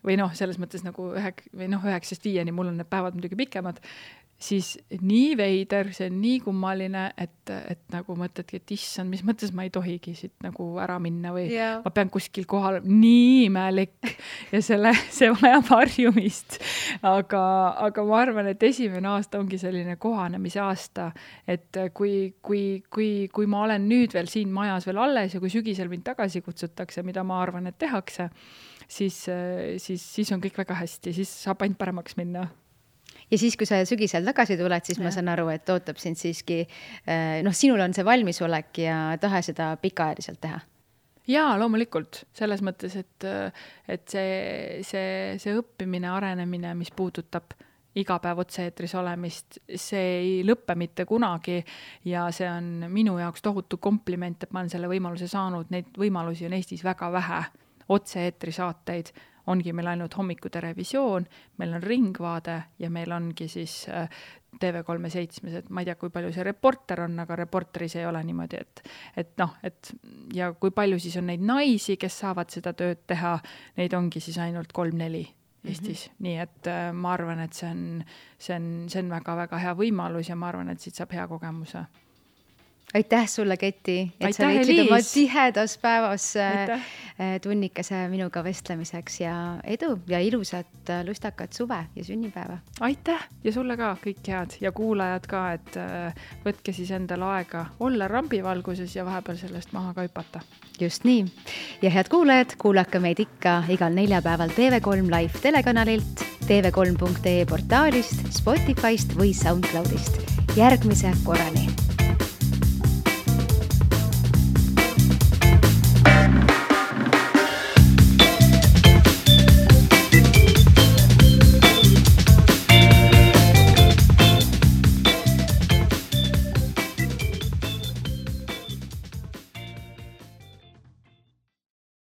või selles mõttes nagu 9-5, mul on need päevad muidugi pikemad, siis nii veider, see on nii kummaline, et nagu mõtledki, et issand, mis mõttes ma ei tohigi siit nagu ära minna või ma pean kuskil kohal, nii imelik ja see vajab harjumist. Aga ma arvan, et esimene aasta ongi selline kohanemise aasta, et kui ma olen nüüd veel siin majas veel alles ja kui sügisel mind tagasi kutsutakse, mida ma arvan, et tehakse, siis on kõik väga hästi, siis saab ainult paremaks minna. Ja siis, kui sa sügisel tagasi tuled, siis ma saan aru, et ootab sind siiski, sinul on see valmisolek ja tahe seda pikaajaliselt teha. Jaa, loomulikult. Selles mõttes, et see õppimine, arenemine, mis puudutab iga päev otse-eetris olemist, see ei lõppe mitte kunagi ja see on minu jaoks tohutu kompliment, et ma olen selle võimaluse saanud. Neid võimalusi on Eestis väga vähe. Otse-eetri saateid ongi meil ainult hommikuterevisioon, meil on Ringvaade ja meil ongi siis TV3-7, et ma ei tea, kui palju see reporter on, aga reporteris ei ole niimoodi, et ja kui palju siis on neid naisi, kes saavad seda tööd teha, neid ongi siis ainult 3-4 Eestis. Nii et ma arvan, et see on väga-väga hea võimalus ja ma arvan, et siit saab hea kogemuse. Aitäh sulle, Keti, et sa leidsid oma tihedas päevas tunnikese minuga vestlemiseks ja edu ja ilusat lustakat suve ja sünnipäeva. Aitäh ja sulle ka kõik head ja kuulajad ka, et võtke siis endale aega olla rambivalguses ja vahepeal sellest maha ka hüpata. Just nii. Ja head kuulajad, kuulake meid ikka igal neljapäeval TV3 Live telekanalilt, tv3.ee portaalist, Spotifyst või SoundCloudist. Järgmise korrani!